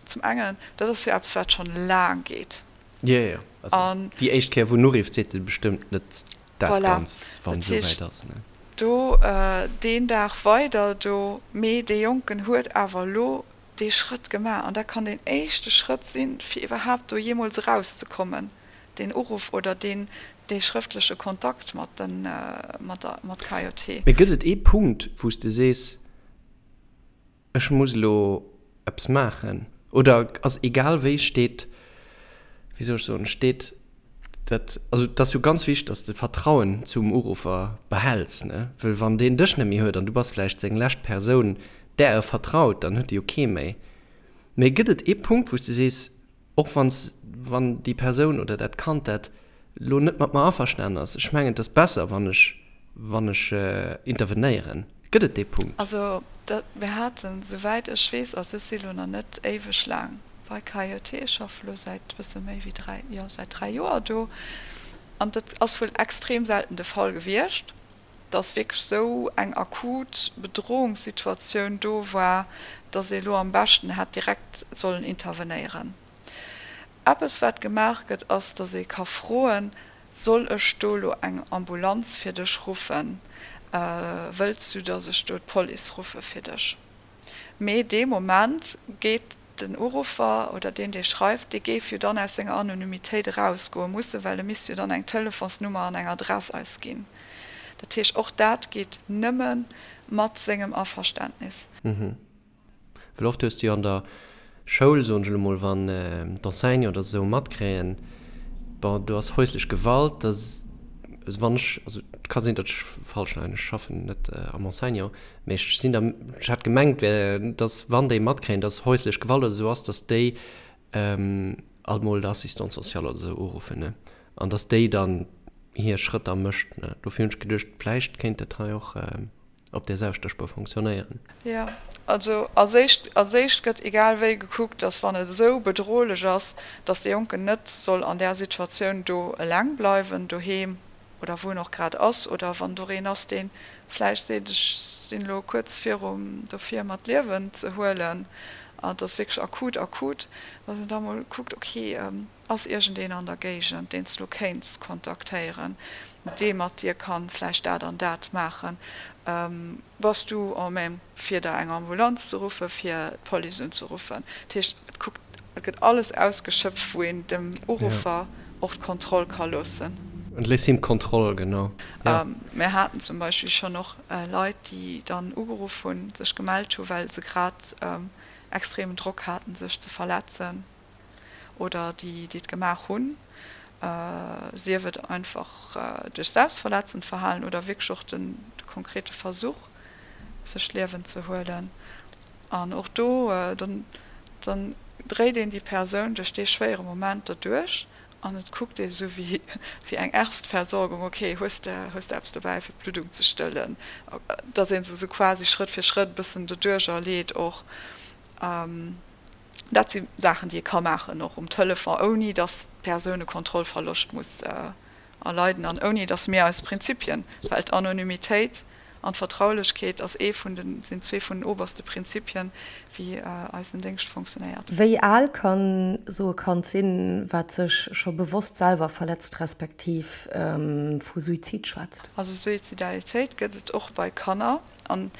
Speaker 4: zum engen, dat ass jo eppes, wat schonn laang geet.
Speaker 3: Jo, jo, also déi éischt Kéier, wou en urifft, seet e bestëmmt net dat Ganzt, wann esou wäit ass, ne?
Speaker 4: Do deen Dag weider do, mee dee Jonken huet awer elo. dee Schrëtt gemaach an dat kann deen éischte Schrëtt sinn, fir iwwerhaapt do jeemools erauszekommen, deen Uruff oder deen, dee schrëftleche Kontakt mat den, mat der, mat KJT.
Speaker 3: Mee gëtt et ee Punkt, wou s de sees, ech muss elo eppes maachen? Oder ass egal wéi steet, wéi soll ech soen, steet dat, also et ass jo ganz wichteg, dass de Vertrauen zum Uruffer behäls, ne? Wëll wann deen dech net méi huet an du bass vläicht seng lescht Persoun, där e vertraut, dann huet e jo kee méi. Mee gëtt et ee Punkt, wou s de sees, Och wann wann déi Persoun oder dat Kand dat elo net mat mer averstanen ass, ech mengen, et ass besser, wann ech, wann ech intervenéieren. Gëtt et dee Punkt?
Speaker 4: Also dat, mir haten, souwäit ech weess, also ech si lo nach net éiweg laang bei KJT, ech schaffe lo säit bësse méi wéi 3, jo säit 3 Joer do, an dat ass wuel extrem selten de Fall gewiescht. dass wierklech esou eng akut Bedrohungssituatioun do war, dass ee elo am beschten hätt direkt sollen intervenéieren. Eppes wat gemaach gëtt, ass, dass ee ka froen, Soll ech do elo eng Ambulanz fir dech ruffen? Wëlls du, dass ech do d'Police ruffe fir dech? Mee dee Moment geet den Uruffer oder deen, dee schreift, dee géif jo dann aus senger Anonymitéit erausgoe mussen, well e misst jo dann eng Telefonsnummer an eng Adress eis ginn. Dat heescht, och dat geet nëmme mat sengem Averständnis.
Speaker 3: Well oft hues de jo an der Schoul, soen ech elo mol, wann d'Enseignanten oder esou matkréien, bon, do ass häuslech Gewalt, da wann ech, also et ka sinn, datt ech falsch leien, ech schaffen net am Enseignant, Mee ech sinn der, ech hat gemengt, wär, dass wann déi matkréien, dass häuslech Gewalt oder esou ass, dass déi alt mol d'Assistante sociale oder esou uruffen, ne? An dass déi dann hir Schrëtter mécht, ne? Dofir hunn ech geduecht, vläicht kéint dat hei och op där selwechter Spuer fonctionnéieren.
Speaker 4: Jo, also als éischt, als éischt gëtt egal wéi gekuckt, dass wann et esou bedrohlech ass, dass dee Jonken net soll an där Situatioun do eleng bleiwen doheem, oder wou en och grad ass, oder wann do een ass, dee vläicht seet, ech sinn elo kuerz virum dofir mer d'Liewen ze huelen, an et ass wierklech akut, akut, datt een da mol kuckt, ok, ass iergendeen an der Géigend, deen s de elo kéints kontaktéieren, dee mat dir kann vläicht dat an dat maachen, bass du en même fir der eng Ambulanz ze ruffen, fir d'Police unzeruffen. Dat heescht, et kuckt, et gëtt alles ausgeschöpft, wou een dem Uruffer och d'Kontroll ka loossen.
Speaker 3: Et léisst him d'Kontroll, genau,
Speaker 4: jo. Mir haten zum Beispill schonn och Leit, déi dann ugeruff hunn, sech gemellt hu well se grad extremen Drock haten, sech ze verletzen. oder déi déi et gemaach hunn, sief et einfach duerch selbstverletzend Verhalen oder wierklech och de konkrete Versuch sech d'Liewen ze huelen. An och do, dann dann dréit een déi Persoun duerch dee schwéiere Moment derduerch an et kuckt ee sou wéi wéi eng Erstversorgung, ok, hues de hues de eppes dobäi fir d'Bluddung ze stëllen, datt ee se sou quasi Schrëtt fir Schrëtt e bëssen doduercher leet och. Dat si Saachen, déi ee ka maachen, och um Telefon, ouni datt d'Persoun e Kontrollverloscht muss erleiden an ouni datt mir eis Prinzipien, well d'Anonymitéit an d'Vertraulechkeet ass ee vun den, sinn zwee vun den oberste Prinzipien, wéi eisen Déngscht funktionéiert.
Speaker 2: Wéi al kann esou e Kand sinn, wat sech scho bewosst selwer verletzt respektiv vu Suizid schwätzt?
Speaker 4: Also Suizidalitéit gëtt et och bei Kanner an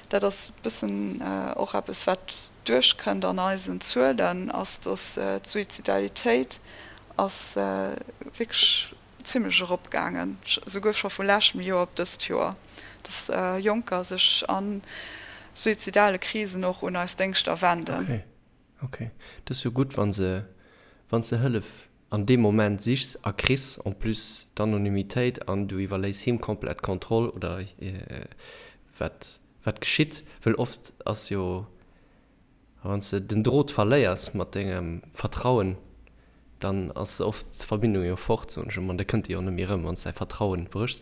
Speaker 4: dat ass e bëssen och eppes, wat duerchkënnt an eisen Zuelen, ass, dass d'Suizidalitéit ass wierklech zimlech eropgaangen, souguer scho vu leschtem Joer op dëst Joer, dass Jonker sech a suizidale Krisen och un eis Déngschter wenden.
Speaker 3: Ok, ok. Dat ass jo gutt, wa se, wann s de Hëllef an deem Moment sichs a kriss en plus d'Anonymitéit an du iwwerléiss him komplett d'Kontroll oder wat wat geschitt, wëll oft ass jo, wann s de den Drot verléiers mat dengem Vertrauen, dann ass oft d'Verbindung jo fort, soen ech ëmmer, an da kënnt déi och net méi erëm, wann s däi Vertrauen bréchs.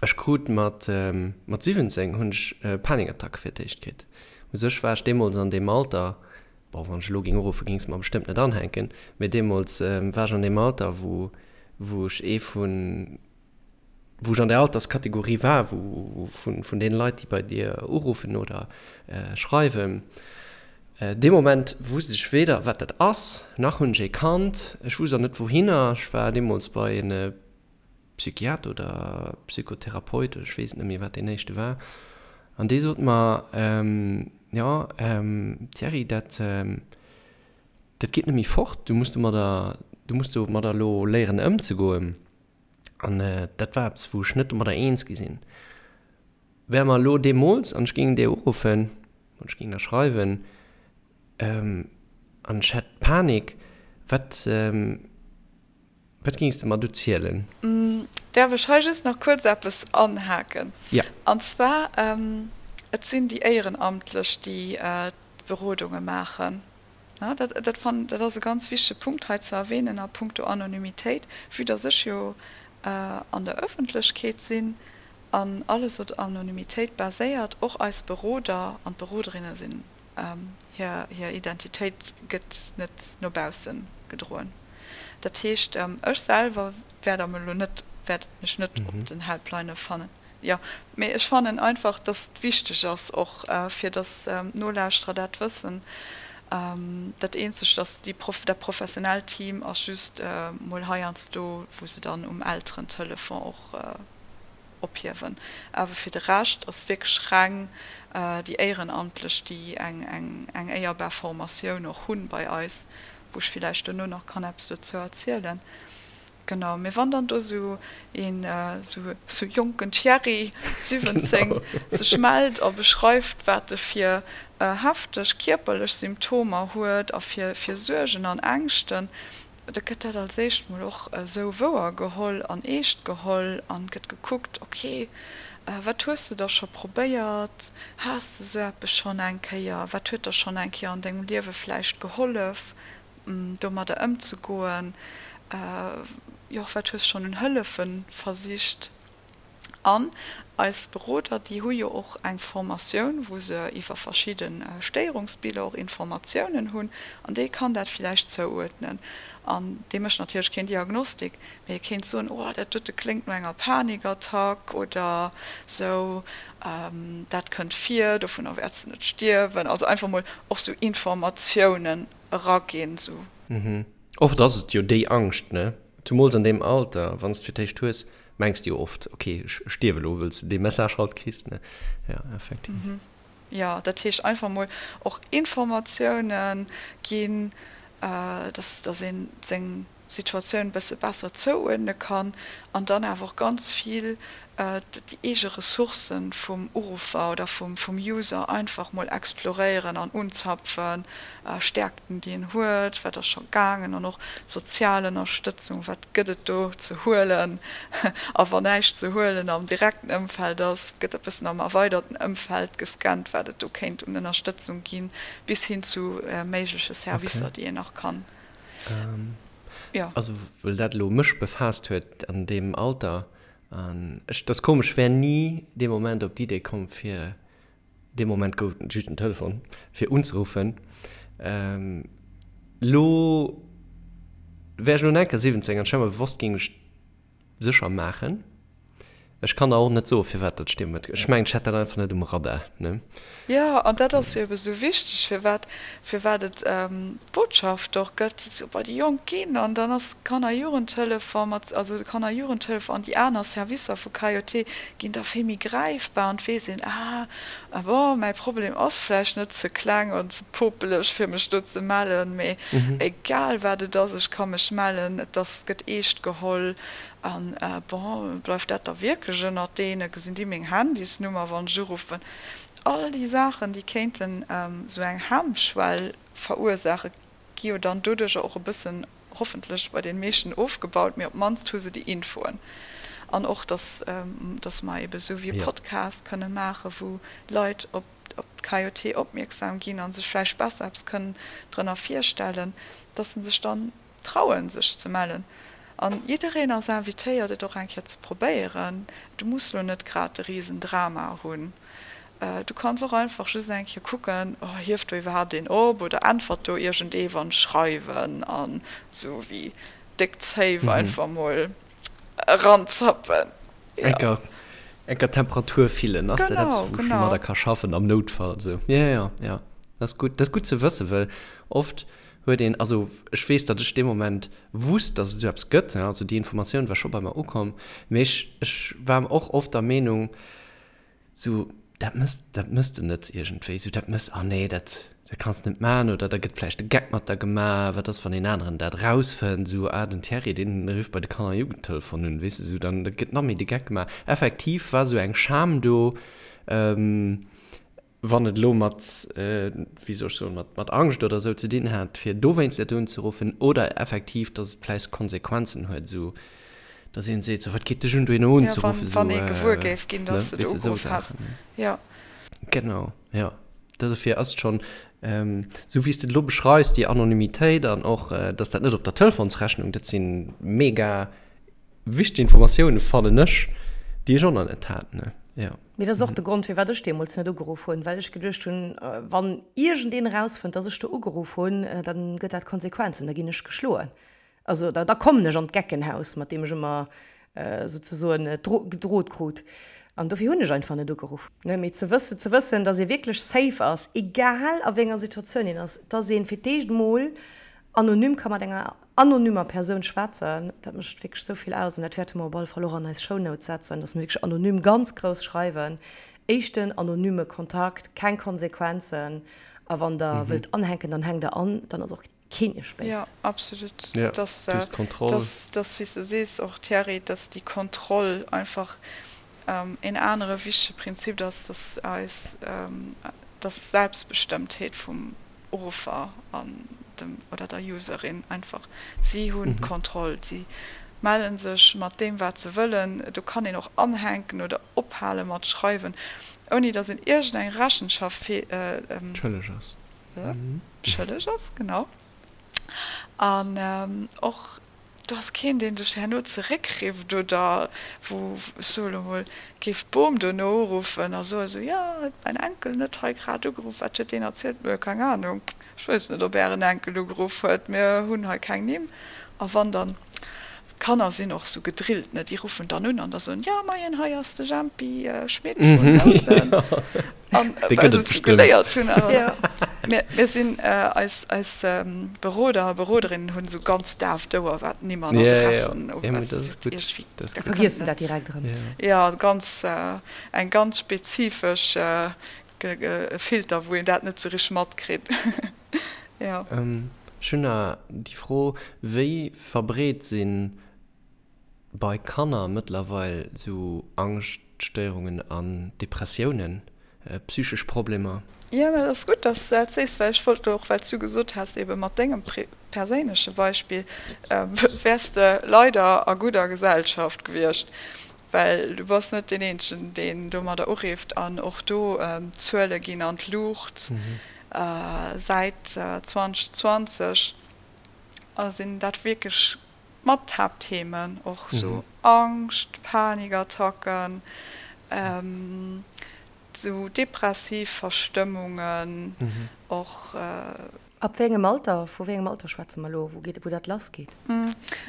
Speaker 3: Ech krut mat mat 17 hunn ech Panikattacke fir d'éischt kritt. U sech war ech deemools an deem Alter, Bon, wann ech elo géing uruffen, géing se mer bestëmmt net anhänken, mee deemools war ech an deem Alter, wou, wou ech ee vun, wou ech an där Alterskategorie war, wou, vun, vun deene Leit, déi bei dir uruffen oder schreiwen. Dee Moment wusst ech weder, wat dat ass, nach hunn ech ee kannt. Ech wusst och net, wouhinner. Ech war deemools bei en Psychiater oder Psychotherapeut, ech weess et net méi, wat deen éischte war. An déi sot mer, Jo, Thierry, dat, dat geet net méi fort, du muss domadder, du muss domadder elo léieren ëmzegoen. An dat war eppes, wou ech net domadder eens gi sinn. Wär mer elo deemools, an ech géing déi uruffen, oder ech géing der schreiwen, an ech hätt Panik, wat, wat géings de mer do zielen?
Speaker 4: Däerf ech hei just nach kuerz eppes anhaken?
Speaker 3: Jo.
Speaker 4: An zwar, et sinn déi Éierenamtlech, déi d'Berodunge maachen. Dat, dat fannen, dat ass e ganz wichtege Punkt hei ze erwähnen a puncto Anonymitéit, vue dass ech jo an der Öffentlechkeet sinn an alles op Anonymitéit baséiert, och eis Beroder an d'Beroderinne sinn, hir, hir Identitéit gëtt net no bausse gedroen. Dat heescht, ech selwer wäert am elo net, wäert mech net op den Helplinë fannen. Jo, mee ech fannen einfach, dass et wichteg ass och, fir dass d'Nolauschterer dat wëssen. Dat eenzegt ass, déi Proff, dat professionellt Team ass just mol heiansdo, wou se dann um Elterentelefon och ophiewen. Awer fir de Rescht ass wierklech reng déi Éierenamtlech, déi eng, eng, eng éierbar Formatioun och hunn bei eis, wou ech villäicht dono nach kann eppes dozou erzielen. Genau, mee wann dann do sou een sou jonken Thierry, 17, sech mellt a beschreift wat e fir hefteg kierperlech Symptomer huet a fir fir Suergen an Ängschten, da gëtt dat als éischt mol och esou wouer geholl an eescht geholl an gëtt gekuckt, ok, wat hues de da scho probéiert, has de sou eppes schonn eng Kéier, wat huet der schonn eng Kéier an dengem Liewe vläicht gehollef? domadder ëmzegoen, jo och wat hues schonn un Hëllefe versicht. An eis Beroder, déi hu jo och eng Formatioun, wou se iwwer verschidde Stéierungsbiller och Informatiounen hunn, an dee kann dat villäicht zouuerdnen. An dee mécht natierlech keen Diagnostik, mee e kéint soen, oh dat dote kléngt no enger Panikattack oder sou, dat kënnt vir, dovunner wäerts de net stierwen. Also einfach mol och sou Informatiounen eraginn, sou.
Speaker 3: Mhm. Oft ass et jo déi Angscht, ne? Zumools an deem Alter, wann s de fir d'éischt hues, mengs de jo oft, ok, ech stierf elo, wëll s de dee Message halt kriss, ne? Ja, effektiv.
Speaker 4: Mhm. Jo, dat heescht einfach mol och Informatiounen ginn, dass, dass een seng Situatioun e bësse besser zouuerdne kann an dann awer och ganz vill déi eege Ressourcë vum Uruffer oder vum User einfach mol exploréieren an unzapfen, Stäerkten, déi en huet, wat ass scho gaangen an och sozial Ënnerstëtzung, wat gëtt et do ze huelen a wann näischt ze huelen am direkten Ëmfeld ass, gëtt e bëssen am erweiderten Ëmfeld gescannt, wat et do kéint un Ënnerstëtzung ginn, bis hin zu méigleche Servicer, déi een nach kann.
Speaker 3: Jo. Also well dat elo mech befaasst huet an deem Alter, an ech, dat ass komesch, wär ni dee Moment op d'Idee komm fir, dee Moment gouf et just en Telefon, fir unzeruffen. Elo wär ech elo nach eng Kéier 17 an ech wär mer bewosst, géing ech sécher maachen. Ech kann der och net soen, firwat dat stierm huet. Ech mengen, ech hat dat einfach net um Radar, ne?
Speaker 4: Jo, an dat ass jo ebe sou wichteg, firwat, firwat et d'Botschaft och gëtt, déi sou bei déi Jonk ginn. An dann ass d'Kanner-Jugendhëllef mat, also de Kanner-Jugendhëllef an déi aner Servicer vu KJT ginn da vill méi gräifbar an et weess een, ah, ah bon, mäi Problem ass vläicht net ze kleng an ze popeleg, fir mech do ze mellen, mee egal wat et ass, ech ka mech mellen, et ass, gëtt eescht geholl. An, bon, bleift dat da wierklech ënnert deene? Gesinn déi meng Handysnummer, wann ech uruffen? All déi Saachen, déi kéinten esou eng Hemmschwell verursaachen, gi jo dann doduercher och e bëssen, hoffentlech bei deene meeschten, ofgebaut, mee op d'mannst hu se déi Infoen. An och, dass, dass mer ebe sou wéi e Podcast kënne maachen, wou Leit op d'KJT opmierksam ginn a sech vläicht besser eppes kënnen drënner virstellen, dass se sech dann trauen sech ze mellen an jiddereen ass invitéiert et och eng Kéier ze probéieren. Du muss lo net grad de riesen Drama hunn, du kanns och einfach just eng Kéier kucken, oh hieft do iwwerhaapt een op oder äntwert do iergendee wann ech schreiwen an sou wéi déck Zéif einfach mol eranzappen.
Speaker 3: Jo. Enker Temperatur fillen, ass dat eppes wou ech domadder ka schaffen am Noutfall sou? Jo jo jo, dat ass gutt, dat ass gutt ze wëssen, well oft huet een, also ech weess, datt ech dee Moment wusst, datt et esou eppes gëtt, also déi Informatioun war scho bei mer ukomm, mee ech, ech war och oft der Meenung, sou. Dat mëss, dat mëss de net iergendwéi esou, dat mëss, ah nee, dat, dat kanns de net maachen oder da gëtt vläicht de Geck mat der gemaach, wat ass, wann een aneren dat erausfënnt, esou, ah, den Thierry, deen rifft bei de Kanner a Jugendtelefon un, weess de, esou, dann gëtt nach méi de Geck gemaach. Effektiv war esou eng Scham do, wann et elo mat, wéi soll ech soen, mat, mat Angscht oder esou ze dinn hat, fir dowéinst net unzeruffen oder effektiv, dass et vläicht Konsequenzen huet, esou. Dass een seet, sou, wat geet dech un, dohinner unzeruffen,
Speaker 4: sou, wann ee gewuer géif ginn, dass de do ugeruff häss, jo.
Speaker 3: Genau, jo. Dofir ass et schonn, sou wéi s de et elo beschreifs, déi Anonymitéit an och, dass dat net op der Telefonsrechnung, dat si mega wichteg Informatiounen, fannen ech, déi ech och nach net hat, ne, jo.
Speaker 2: Mee dat ass och de Grond, firwat ech deemools net ugeruff hunn, well ech geduecht hunn, wann iergendeen erausfënnt, dass ech do ugeruff hunn, da gëtt dat Konsequenzen, da ginn ech geschloen. Also da, da kommen ech an d'Geckenhaus, mat deem ech ëmmer souzesoen gedrot krut. An dofir hunn ech einfach net ugeruff. Ne, mee ze wëssen, ze wëssen, dass ee wierklech safe ass, egal a wéi enger Situatioun een ass, dass ee fir d'éischt emol anonym ka mat enger anonymer Persoun schwätzen, dat mécht wierklech esou vill aus. An dat wäerte mer op alle Fall och an eis Shownotes setzen, dass mer wierklech anonym ganz grouss schreiwen, éischten anonyme Kontakt, keng Konsequenzen. A wann Der wëllt anhänken, dann hänkt Der an, dann ass och Keen iech béis.
Speaker 4: Jo, absolut. Ja, dass, du hast d'Kontroll. Dass, dass, wéi s de sees och, Thierry, dass déi Kontroll einfach een anere wichtege Prinzip ass, dass eis, dass d'Selbstbestëmmtheet vum Uruffer an dem oder der Userin einfach, si hunn d'Kontroll, si melle sech mat deem, wat se wëllen. Do kann een och anhänken oder ophale mat schreiwen, ouni dass een iergendeng Rechenschaft
Speaker 3: Schëlleg ass.
Speaker 4: Schëlleg ass, genau. An och do ass keen, deen dech herno zeréckrifft oder wou, ech soe lo mol, géif d'Bom dono uruffen a soe sou, jo, huet mäin Enkel net hei grad ugeruff, wat huet deen erzielt? Nö, keng Anung, ech weess net, ob ären Enkel ugeruff huet, mir hunn hei keng Nimm. A wann dann D'Kanner sinn och sou gedrillt, ne, déi ruffen dann un an da soen, jo moien, hei ass de Jempi Schmit vun Housen. An well se et sou geléiert hunn. Mir, mir sinn, eis, eis Beroder a Beroderinnen hunn sou ganz daaft Ouer, wat Nimm an Adressen ugeet.
Speaker 2: Da vergiess de dat direkt erëm.
Speaker 4: Jo, ganz, eng ganz spezifesch Filter, wou een dat net sou richteg matkritt.
Speaker 3: Jo. Ech hunn nach déi Fro, Wéi verbreet si bei Kanner mëttlerweil esou Angschtstéierungen an Depressiounen, psychesch Problemer?
Speaker 4: Jo, mä et ass gutt, dass s de dat sees, well ech wollt elo och, well s du gesot has, ebe mat dengem perséinleche Beispill wäers de leider a gudder Gesellschaft gewiescht, well du bass net deen Eenzegen, deen domadder urifft an och do d'Zuele ginn an d'Luucht. Säit 2020 sinn dat wierklech mat d'Haaptthemen, och sou Angscht, Panikattacken, sou depressiv Verstëmmungen och.
Speaker 2: Ab wéi engem Alter, vu wéi engem Alter schwätze mer elo, wou geet, wou dat lass geet?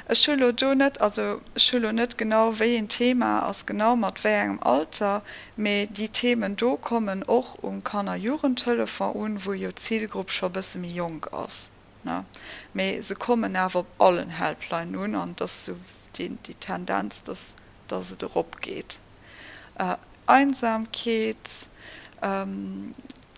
Speaker 4: Ech hu lo do net, also ech hu lo net genau wéi een Thema ass genau mat wéi engem Alter, mee déi Themen do kommen och um Kanner-Jugendtelefon un, wou jo d'Zilgrupp scho bësse méi jonk ass, ne. Mee se kommen awer op allen Helplinen un an et ass esou déi Tendenz, dass dass et erop geet. Einsamkeet,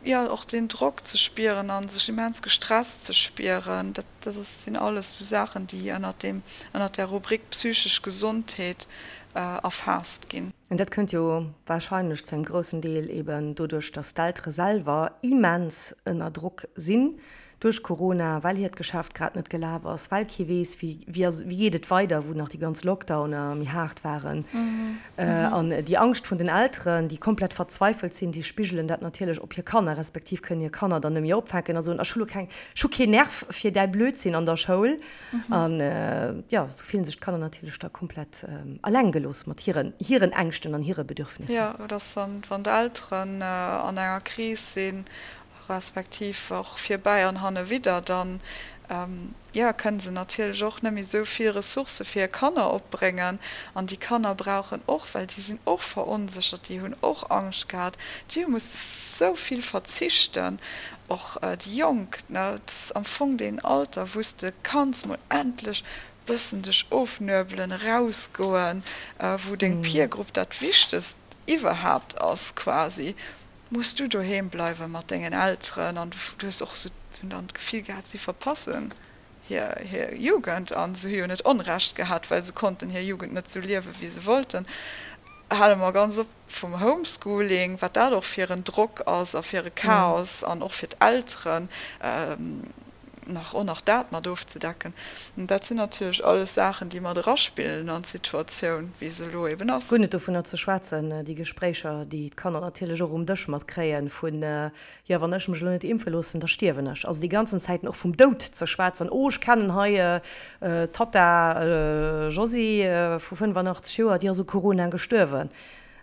Speaker 4: jo och deen Drock ze spieren a sech immens gestresst ze spieren, dat dat ass sinn alles sou Saachen, déi ënnert deem ënnert där Rubrik psychesch Gesondheet erfaasst ginn.
Speaker 2: An dat kënnt jo warscheinlech zu engem groussen Deel eben doduerch, dass d'Eltere selwer immens ënner Drock sinn duerch Corona, well hiert Geschäft grad net gelaf ass, well kee weess, wéi, wéi ass, wéi geet et weider, wou nach déi ganz Lockdowner méi haart waren. An déi Angscht vun den Elteren, déi komplett verzweifelt sinn, déi spigelen dat natierlech op hir Kanner, respektiv kënnen hir Kanner dann net méi opfänken a soen, ech hu lo keng, ech hu keen Nerv fir däi Blödsinn an der Schoul. An jo, esou fillen sech d'Kanner natierlech da komplett eleng gelooss mat hiren, hiren Ängschten an hire Bedürfnisser.
Speaker 4: Jo, et ass, wann, wann d'Elteren an enger Kris sinn respektiv och virbäi an hannewidder, dann, jo, kënne se natierlech och net méi esou vill Ressourcë fir hir Kanner opbréngen. An déi Kanner brauchen och, well déi sinn och veronséchert, déi hunn och Angscht gehat, déi hu musse esou vill verzichten, och déi Jonk, ne, et ass am Fong deen Alter, wou s de kanns mol endlech bëssen dech ofnuebelen, erausgoen, wou deng Peer Group dat Wichtegst iwwerhaapt ass quasi. Muss du doheem bleiwe mat dengen Elteren? An du hues och esou dann d'Gefill gehat, si verpassen hir hir Jugend. A se hu jo net Onrecht gehat, well se konnten hir Jugend net esou liewe wéi se wollten. Hale mer ganz op vum Homeschooling, wat dat och fir en Drock ass a fir e Chaos an och fir d'Elteren nach och nach dat mat ofzedecken. Dat sinn natierlech alles Saachen, déi mat eraspillen an d'Situatioun, wéi se elo eben ass.
Speaker 2: Guer net dovunner ze schwätzen, déi Gespréicher, déi d'Kanner natierlech och um Dësch matkréien, vun, jo, wann ech mech elo net impfe loossen, da stierwen ech. Also déi ganzen Zäiten och vum Doud ze schwätzen, oh, ech kennen hei d'Tatta Josy vu 85 Joer, déi ass u Corona gestuerwen.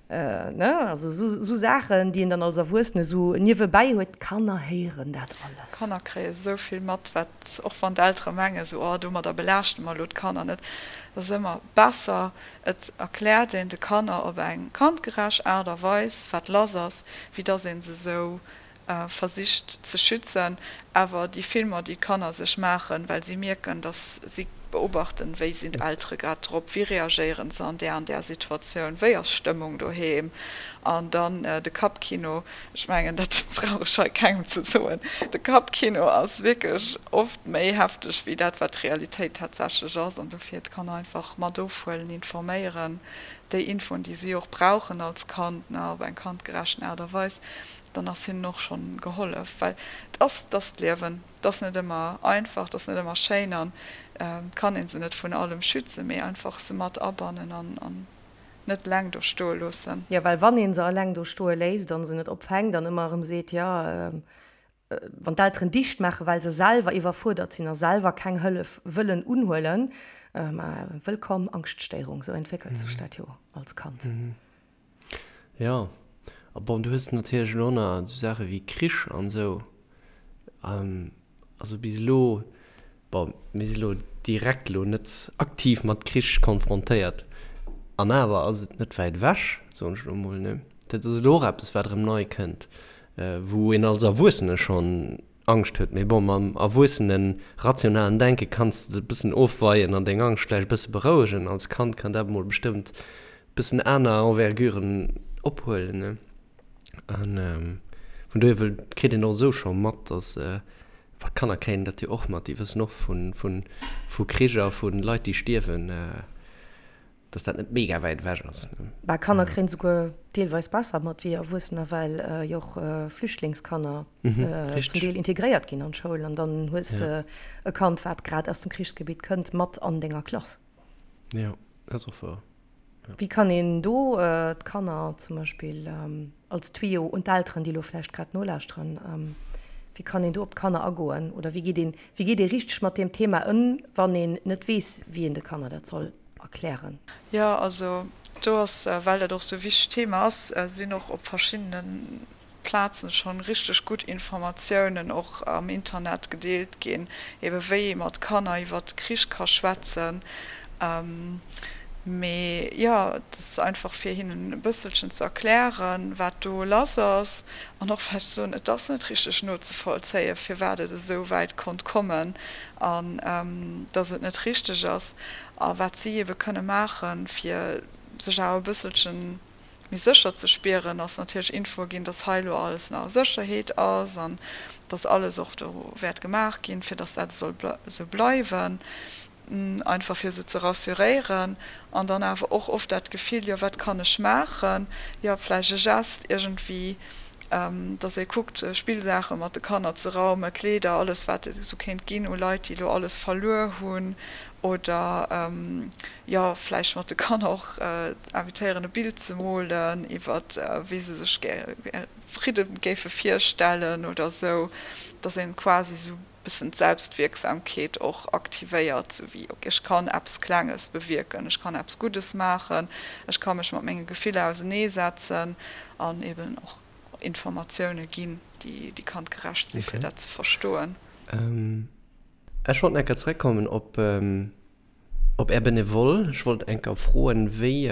Speaker 2: Ne, also esou Saachen, déi een dann als Erwuessene esou niewebäi huet. D'Kanner héieren dat alles.
Speaker 4: D'Kanner kréie esou vill mat, wat, och wann d'Eltere mengen esou, oh, domadder belaaschte mer elo d'Kanner net, et ass ëmmer besser, et erkläert een de Kanner op eng kandgerecht Aart a Weis, wat lass ass, wéi dass ee se esou versicht ze schützen, awer déi Filmer, déi d'Kanner sech maachen, well si mierken, dass si beobachten, wéi sinn d'Eltere grad drop, wéi reagéieren se an där an där Situatioun, wéi ass d'Stëmmung doheem, an dann de Kappkino, ech mengen, dat brauch ech hei kengem ze soen, de Kappkino ass wierklech oft méi hefteg wéi dat, wat d'Realitéit tatsächlech ass, an dofir d'Kanner einfach mat ofhuelen, informéieren, déi Infoen, déi si och brauchen als Kand, ne, op eng kandgerechten Aart a Weis. dann ass hinnen och schonn gehollef, well et ass, et ass d'Liewen, et ass net ëmmer einfach, et ass net ëmmer schéin an et kann ee se net vun allem schützen, mee einfach se mat abannen an an net eleng do stoe loossen.
Speaker 2: Jo, well wann ee se eleng do stoe léisst an se net opfänkt an ëmmer erëm seet, jo, wann d'Elteren dicht maachen, well se selwer iwwerfuerdert sinn a selwer keng Hëllef wëllen unhuelen, ma wëllkomm Angschtstéierung, sou entwéckelt sech dat jo als Kand.
Speaker 3: Jo, a bon, du hues natierlech elo nach esou Saache wéi Krich an esou. Also bis elo, bon, mir si elo direkt elo net aktiv mat Krich konfrontéiert, an awer ass et net wäit ewech, soen ech elo mol, ne? Dat ass elo och eppes, wat erëm nei kënnt, wou een als Erwuessene schonn Angscht huet. Mee bon, mam erwuessenen, rationalen Denke kanns de et e bëssen ofweien an deng Angscht vläicht e bësse berouegen. Als Kand kann dat emol bestëmmt e bëssen aner Enverguren ophuelen, ne? A vun dohier wëll, kritt een och esou scho mat, dass, well Kanner kréien dat jo och mat, déi wëssen och vu, vu, vu Krich a vu Leit, déi stierwen. Dass dat net mega wäit ewech ass.
Speaker 2: Bah, Kanner kréien souguer deelweis besser mat wéi Erwuessener, well jo och Flüchtlingskanner zum Deel integréiert ginn an d'Schoul an dann hues de e Kand, wat grad aus dem Krichsgebitt kënnt, mat an denger Klass.
Speaker 3: Jo, dat ass och wouer.
Speaker 2: Wéi kann een do d'Kanner zum Beispill als Tuyau un d'Elteren, déi elo vläicht grad nolauschteren, wéi kann een do op d'Kanner agoen oder wéi geet een, wéi geet ee richteg mat deem Thema ëm, wann een net weess, wéi een de Kanner dat soll erklären?
Speaker 4: Jo, also do ass, well dat och esou e wichtegt Thema ass, sinn och op verschiddene Plazen schonn richteg gutt Informatiounen och am Internet gedeelt ginn, ebe wéi ee mat Kanner iwwert de Krich ka schwätzen. Mee jo, et ass einfach fir hinnen e bësselchen ze erklären, wat do lass ass an och vläicht ze soen, et ass net richteg nozevollzéien, firwat et esou wäit konnt kommen an dass et net richteg ass a wat si ebe kënne maachen, fir sech awer e bësselchen méi sécher ze spieren, ass natierlech Infoe ginn, dass hei elo alles nach a Sécherheet ass an dass alles och do wäert gemaach ginn, fir dass dat soll esou bleiwen, einfach fir se ze rassuréieren an dann awer och oft dat Gefill, jo wat kann ech maachen, jo vläicht e Gest iergendwéi, dass ee kuckt Spillsaache mat de Kanner ze raumen, Kleeder, alles wat et esou kéint ginn u Leit, déi elo alles verluer hunn oder jo vläicht mat de Kanner och invitéieren e Bild ze molen iwwer wéi se sech Fridde géife virstellen oder esou, dass een quasi esou bëssen d'Selbstwierksamkeet och aktivéiert, sou wéi ok ech kann eppes Klenges bewierken, ech kann eppes Guddes maachen, ech ka mech mat menge Gefiller auseneesetzen an eben och Informatioune ginn, déi kandgerecht si fir dat ze verstoen.
Speaker 3: Ech wollt nach eng Kéier zeréckkommen op Op Är Benevole, ech wollt eng Kéier froen, wéi,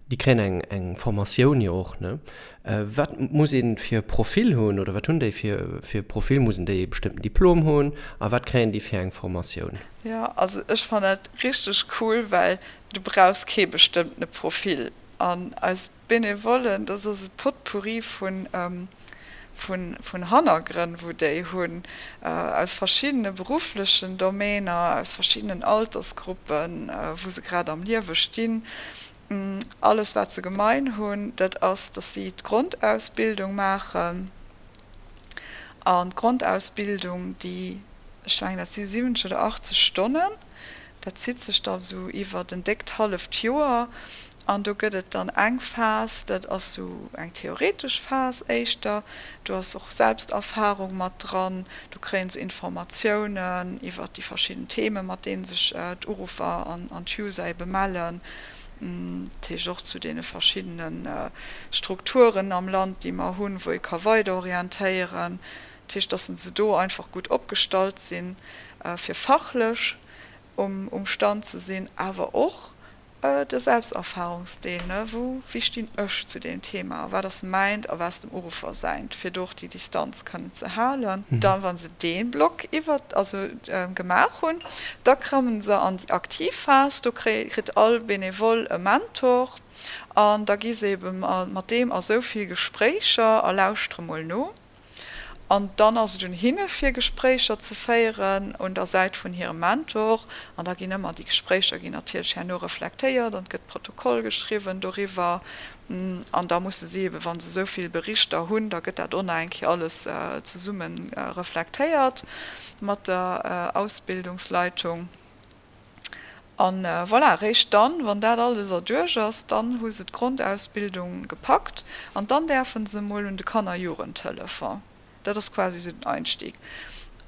Speaker 3: déi kréien eng eng Formatioun jo och, ne? Wat muss ee fir e Profil hunn oder wat hunn déi fir fir e Profil? Mussen déi e bestëmmten Diplom hunn a wat kréien déi fir eng Formatioun?
Speaker 4: Jo, also ech fannen dat richteg cool, well du brauchs kee bestëmmtene Profil. An eis Benevollen, dat ass e Potpourri vun, vun Hannergrënn, wou déi hunn, aus verschiddene berufflechen Domainer, aus verschiddenen Altersgruppen, wou se grad am Liewe stinn. Alles, wat se gemein hunn, dat ass, dass si d'Grondausbildung maachen. An d'Grondausbildung, déi, ech mengen, dat si 70 oder 80 Stonnen, dat zitt sech da sou iwwert en déckt halleft Joer. An do gëtt et dann eng Phas, dat ass sou eng theoretesch Phas éischter, do ass och Selbsterfarung mat dran, do kréie se Informatiounen iwwert déi verschidden Themen, mat deene sech d'Uruffer an d'User ebe mellen, dat heescht och zu deene verschiddene Strukturen am Land, déi mer hunn, wou ee ka weiderorientéieren. Dat heescht, dass se do einfach gutt opgestallt sinn, fir fachlech um Stand ze sinn, awer och de Selbsterfahrungsdeel, ne, wou, wéi stinn ech zu deem Thema a wat ass mäint a wat ass dem Uruffer säint, fir do och déi Distanz kënnen ze halen. Dann, wa se dee Block iwwer, also gemaach hunn, da kommen se an déi aktiv Phas, do kritt all Benevole e Mentor an da gi se ebe mat deem a sou vill Gespréicher a lauschtere mol no. An dann ass et un hinne fir Gespréicher ze féieren un der Säit vun hirem Mentor. An da ginn ëmmer déi Gespréicher ginn natierlech herno reflektéiert an et gëtt Protokoll geschriwwen doriwwer. An da musse si ebe wa se esou vill Berichter hunn, da gëtt dat och nach eng Kéier alles zesumme reflektéiert mat der Ausbildungsleitung. An voilà, eréischt dann, wann dat alles erduerch ass, dann hu se d'Grondausbildung gepackt an dann däerfe se emol un de Kanner-Jugendtelefon. Dat ass quasi esou den Einstieg.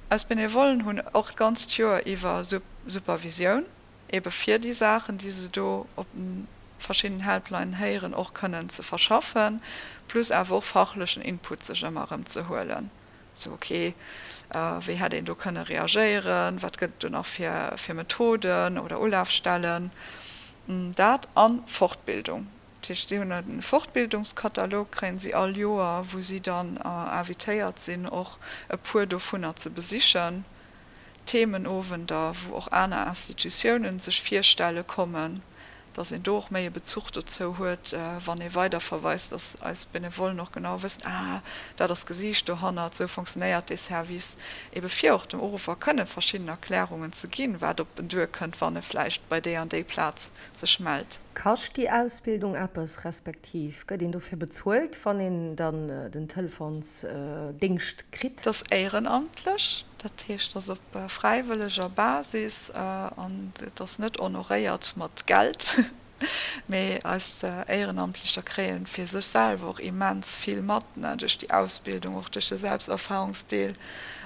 Speaker 4: Eis Benevollen hunn och d'ganzt Joer iwwer Supervisioun, ebe fir déi Saachen, déi se do op de verschiddenen Helplinen héieren, och kënnen ze verschaffen, plus awer och fachlechen Input sech ëmmer erëm ze huelen. Sou, ok, wéi hätt een do kënne reagéieren, wat gëtt et do nach fir Methoden oder Ulafstellen, dat a Fortbildung. Dat heescht, si hunn e Fortbildungskatalog, kréien si all Joer, wou si dann invitéiert sinn, och e puer dovunner ze besichen, Themenowender, wou och aner Institutiounen sech virstelle kommen. dass een do och méi e Bezuch dozou huet, wann ee weiderverweist, dass eis Benevollen och genau wëssen, ah, dat ass d'Gesiicht dohannert, esou fonctionnéiert dee Service, ebe fir och dem Uruffer kënne verschidden Erklärungen ze ginn, wat op en duerkënnt, wann e vläicht bei déi an déi Plaz sech mellt.
Speaker 2: Kascht déi Ausbildung eppes, respektiv gëtt een dofir bezuelt, wann een dann den Telefonsdéngscht kritt?
Speaker 4: Et ass éierenamtlech, dat heescht, et ass op fräiwëlleger Basis an et ass net honoréiert mat Geld, mee eis Éierenamtlecher kréie fir sech selwer och immens vill mat, duerch déi Ausbildung, och duerch de Selbsterfahrungsdeel,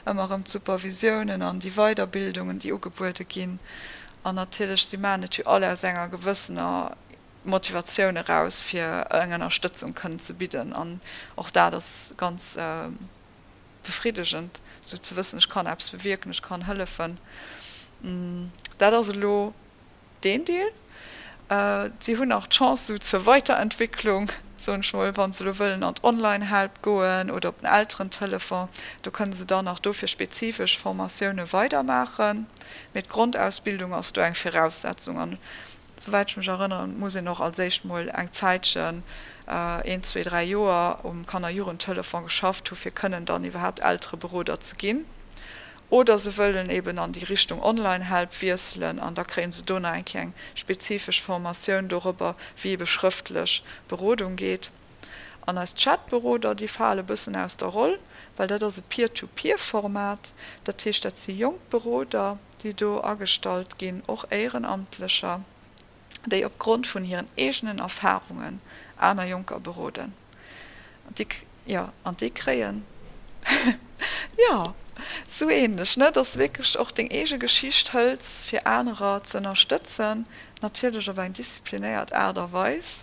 Speaker 4: ëmmer erëm d'Supervisiounen an déi Weiderbildungen, déi ugebuede ginn. An natierlech, si maachen et jo all aus enger gewëssener Motivatioun eraus, fir eng Ënnerstëtzung kënnen ze bidden an och dat ass ganz befriddegend, esou ze wëssen, ech kann eppes bewierken, ech kann hëllefen. Dat ass elo deen Deel. Si hunn nach d'Chance esou zur Weiterentwicklung, soen ech mol, wa se elo wëllen an d'Online-Help goen oder op den Elterentelefon, do kënne se dann nach dofir spezifesch Formatioune weidermaachen. Mee d'Grondausbildung ass do eng Viraussetzung an Souwäit ech mech erënneren, muss een och als éischt mol eng Zäitchen, een, zwee, dräi Joer, um Kanner-Jugendtelefon geschafft hu fir kënnen dann iwwerhaapt Eltereberoder ze ginn. Oder se wëllen eben an déi Richtung Online-Help wiesselen an da kréie se do nach eng Kéier eng spezifesch Formatioun dorobber, wéi ebe schrëftlech Berodung geet. An eis Chatberoder, déi fale bëssen aus der Roll, well dat ass e Peer-to-Peer-Format. Dat heescht, dat si jonk Beroder, déi do agestallt ginn, och Éierenamtlecher, déi op Grond vun hiren eegenen Erfarungen aner Jonker beroden. An déi, jo, an déi kréien, jo, sou ähnlech, ne, dass de wierklech och deng eege Geschicht hëls, fir anerer ze ënnerstëtzen, natierlech op eng disziplinéiert Aart a Weis.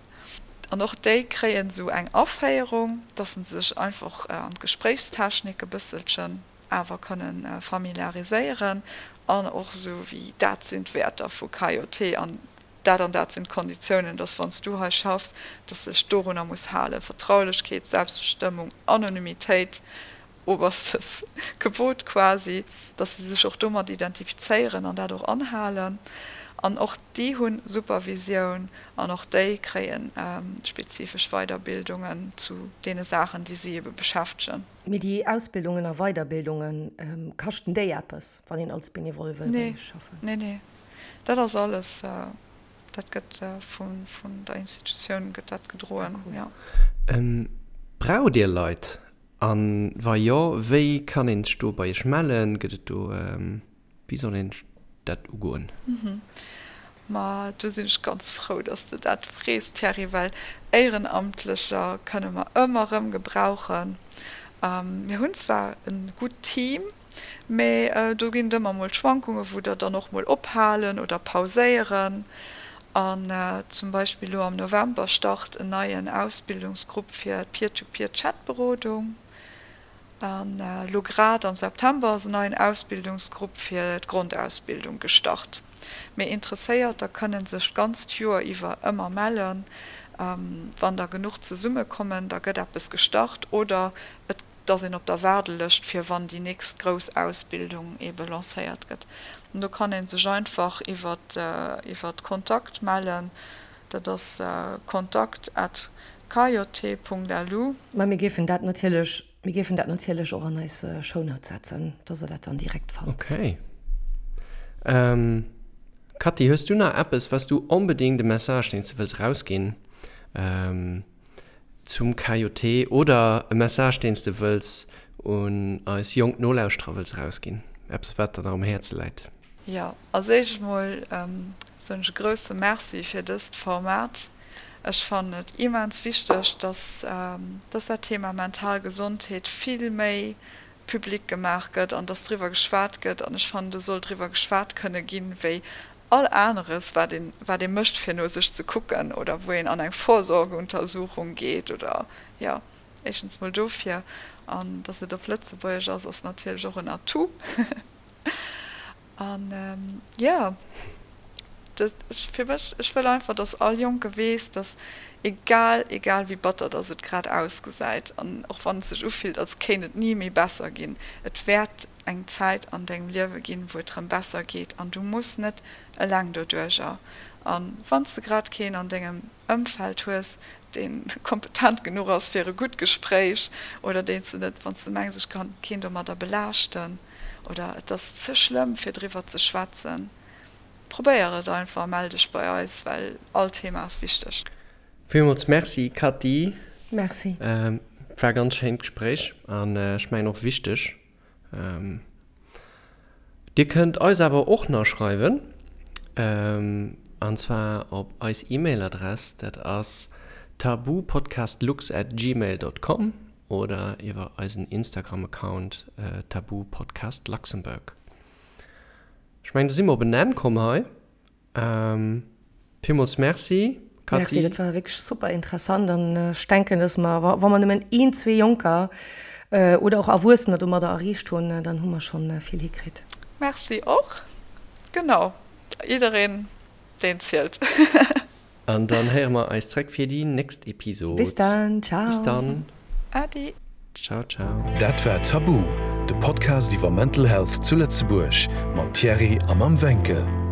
Speaker 4: An och déi kréien esou eng Aféierung, dass se sech einfach an d'Gespréichstechnik e bësselchen awer kënnen familiariséieren an och esou wéi dat sinn d'Wäerter vu KJT an dat an dat sinn d'Konditiounen, dass wann s du hei schaffs, dass s de dech dorunner muss halen, Vertraulechkeet, Selbstbestëmmung, Anonymitéit, oberstes Gebot quasi, dass se sech och domat identifizéieren an dat och anhalen. An och déi hu Supervisioun an och déi kréie spezifesch Weiderbildungen zu deene Saachen, déi si ebe beschäftegen.
Speaker 2: Mee déi Ausbildungen a Weiderbildungen, kaschten déi eppes, wann een als Benevole wëll bei iech schaffen?
Speaker 4: Nee, nee, dat ass alles, dat gëtt vun der Institutioun gëtt dat gedroen, jo.
Speaker 3: Braucht Dir Leit? A wa jo, wéi kann een sech do bei Iech mellen? Gëtt et do, wéi soll een dat ugoen?
Speaker 4: Ma do sinn ech ganz frou, dass s de dat frees, Thierry, well Éierenamtlecher kënne mer ëmmer erëm gebrauchen. Mir hunn zwar e gutt Team, mee do ginn et ëmmer mol Schwankungen, wou der dann och mol ophalen oder pauséieren. An zum Beispill elo am November start en neien Ausbildungsgrupp fir d'Peer-to-Peer-Chat-Berodung. An elo grad am September ass en neien Ausbildungsgrupp fir d'Grondausbildung gestart. Mee Interesséierter kënnen sech d'ganzt Joer iwwer ëmmer mellen. Wann der genuch zesummekommen, da gëtt eppes gestart oder et ass een op der Waardelëscht fir wann déi nächst grouss Ausbildung ebe lancéiert gëtt. An do kann ee sech einfach iwwer Kontakt mellen. Dat ass kontakt at kjt.lu.
Speaker 2: Mä mir géifen dat natierlech, mir géifen dat natierlech och an eis Shownotes setzen, dass Der dat dann direkt fannt.
Speaker 3: Okay. Cathy, hues du nach eppes, wat s du onbedéngt, e Message, deen s du wëlls erausginn zum KJT oder e Message, deen s de wëlls un eis jonk Nolauschterer wëlls erausginn? Eppes, wat der nach um Häerze läit?
Speaker 4: Jo, als éischt emol soen ech e grousse Merci fir dëst Format. Ech fannen et immens wichteg, dass dass dat Thema mental Gesondheet vill méi public gemaach gëtt an dass driwwer geschwat gëtt. An ech fannen, do soll driwwer geschwat kënne ginn, wéi all aneres, wat een wat ee mécht, fir no sech ze kucken oder wou een an eng Vorsorgeuntersuchung geet oder jo. Éischtens mol dofir. An dass et op Lëtzebuergesch ass, ass natierlech och en Atout. An jo, dat, fir mech, ech wëll einfach, dass all Jonke weess, dass egal, egal wéi batter dass et grad ausgesäit an och wann et sech ufillt, als kéint et ni méi besser ginn, et wäert eng Zäit an dengem Liewe ginn, wou et rëm besser geet an du muss net eleng doduercher. A wann s de grad keen an dengem Ëmfeld hues, dee kompetent genuch ass fir e gutt Gespréich oder deen s de net, wann s de mengs, ech kann keen domadder belaaschten oder et ass ze schlëmm fir driwwer ze schwätzen, probéier et einfach a mell dech bei eis, well all Thema ass wichteg.
Speaker 3: Villmools Merci Cathy.
Speaker 2: Merci.
Speaker 3: War ganz schéint Gespréich an ech mengen och wichteg. Dir kënnt eis awer och nach schreiwen, an zwar op eis E-Mail-Adress, dat ass tabupodcastlux at gmail dot com oder iwwer eisen Instagram-Account tabupodcastluxembourg. Ech mengen, do si mer op en Enn komm hei. Villmools Merci,
Speaker 2: Cathy. Merci, dat war wierklech super interessant an ech denken, dass mer, wa mer nëmmen een, zwee Jonker oder och Erwuessener domadder erreecht hunn, dann hu mer schonn vill hikritt.
Speaker 4: Merci och. Genau, jiddereen, deen zielt.
Speaker 3: An dann héiere mer eis zréck fir déi nächst Episod.
Speaker 2: Bis dann, ciao.
Speaker 3: Bis dann.
Speaker 4: Adi.
Speaker 3: Ciao, ciao.
Speaker 1: Dat war Tabu, de Podcast iwwer Mental Health zu Lëtzebuerg mam Thierry a mam Wencke.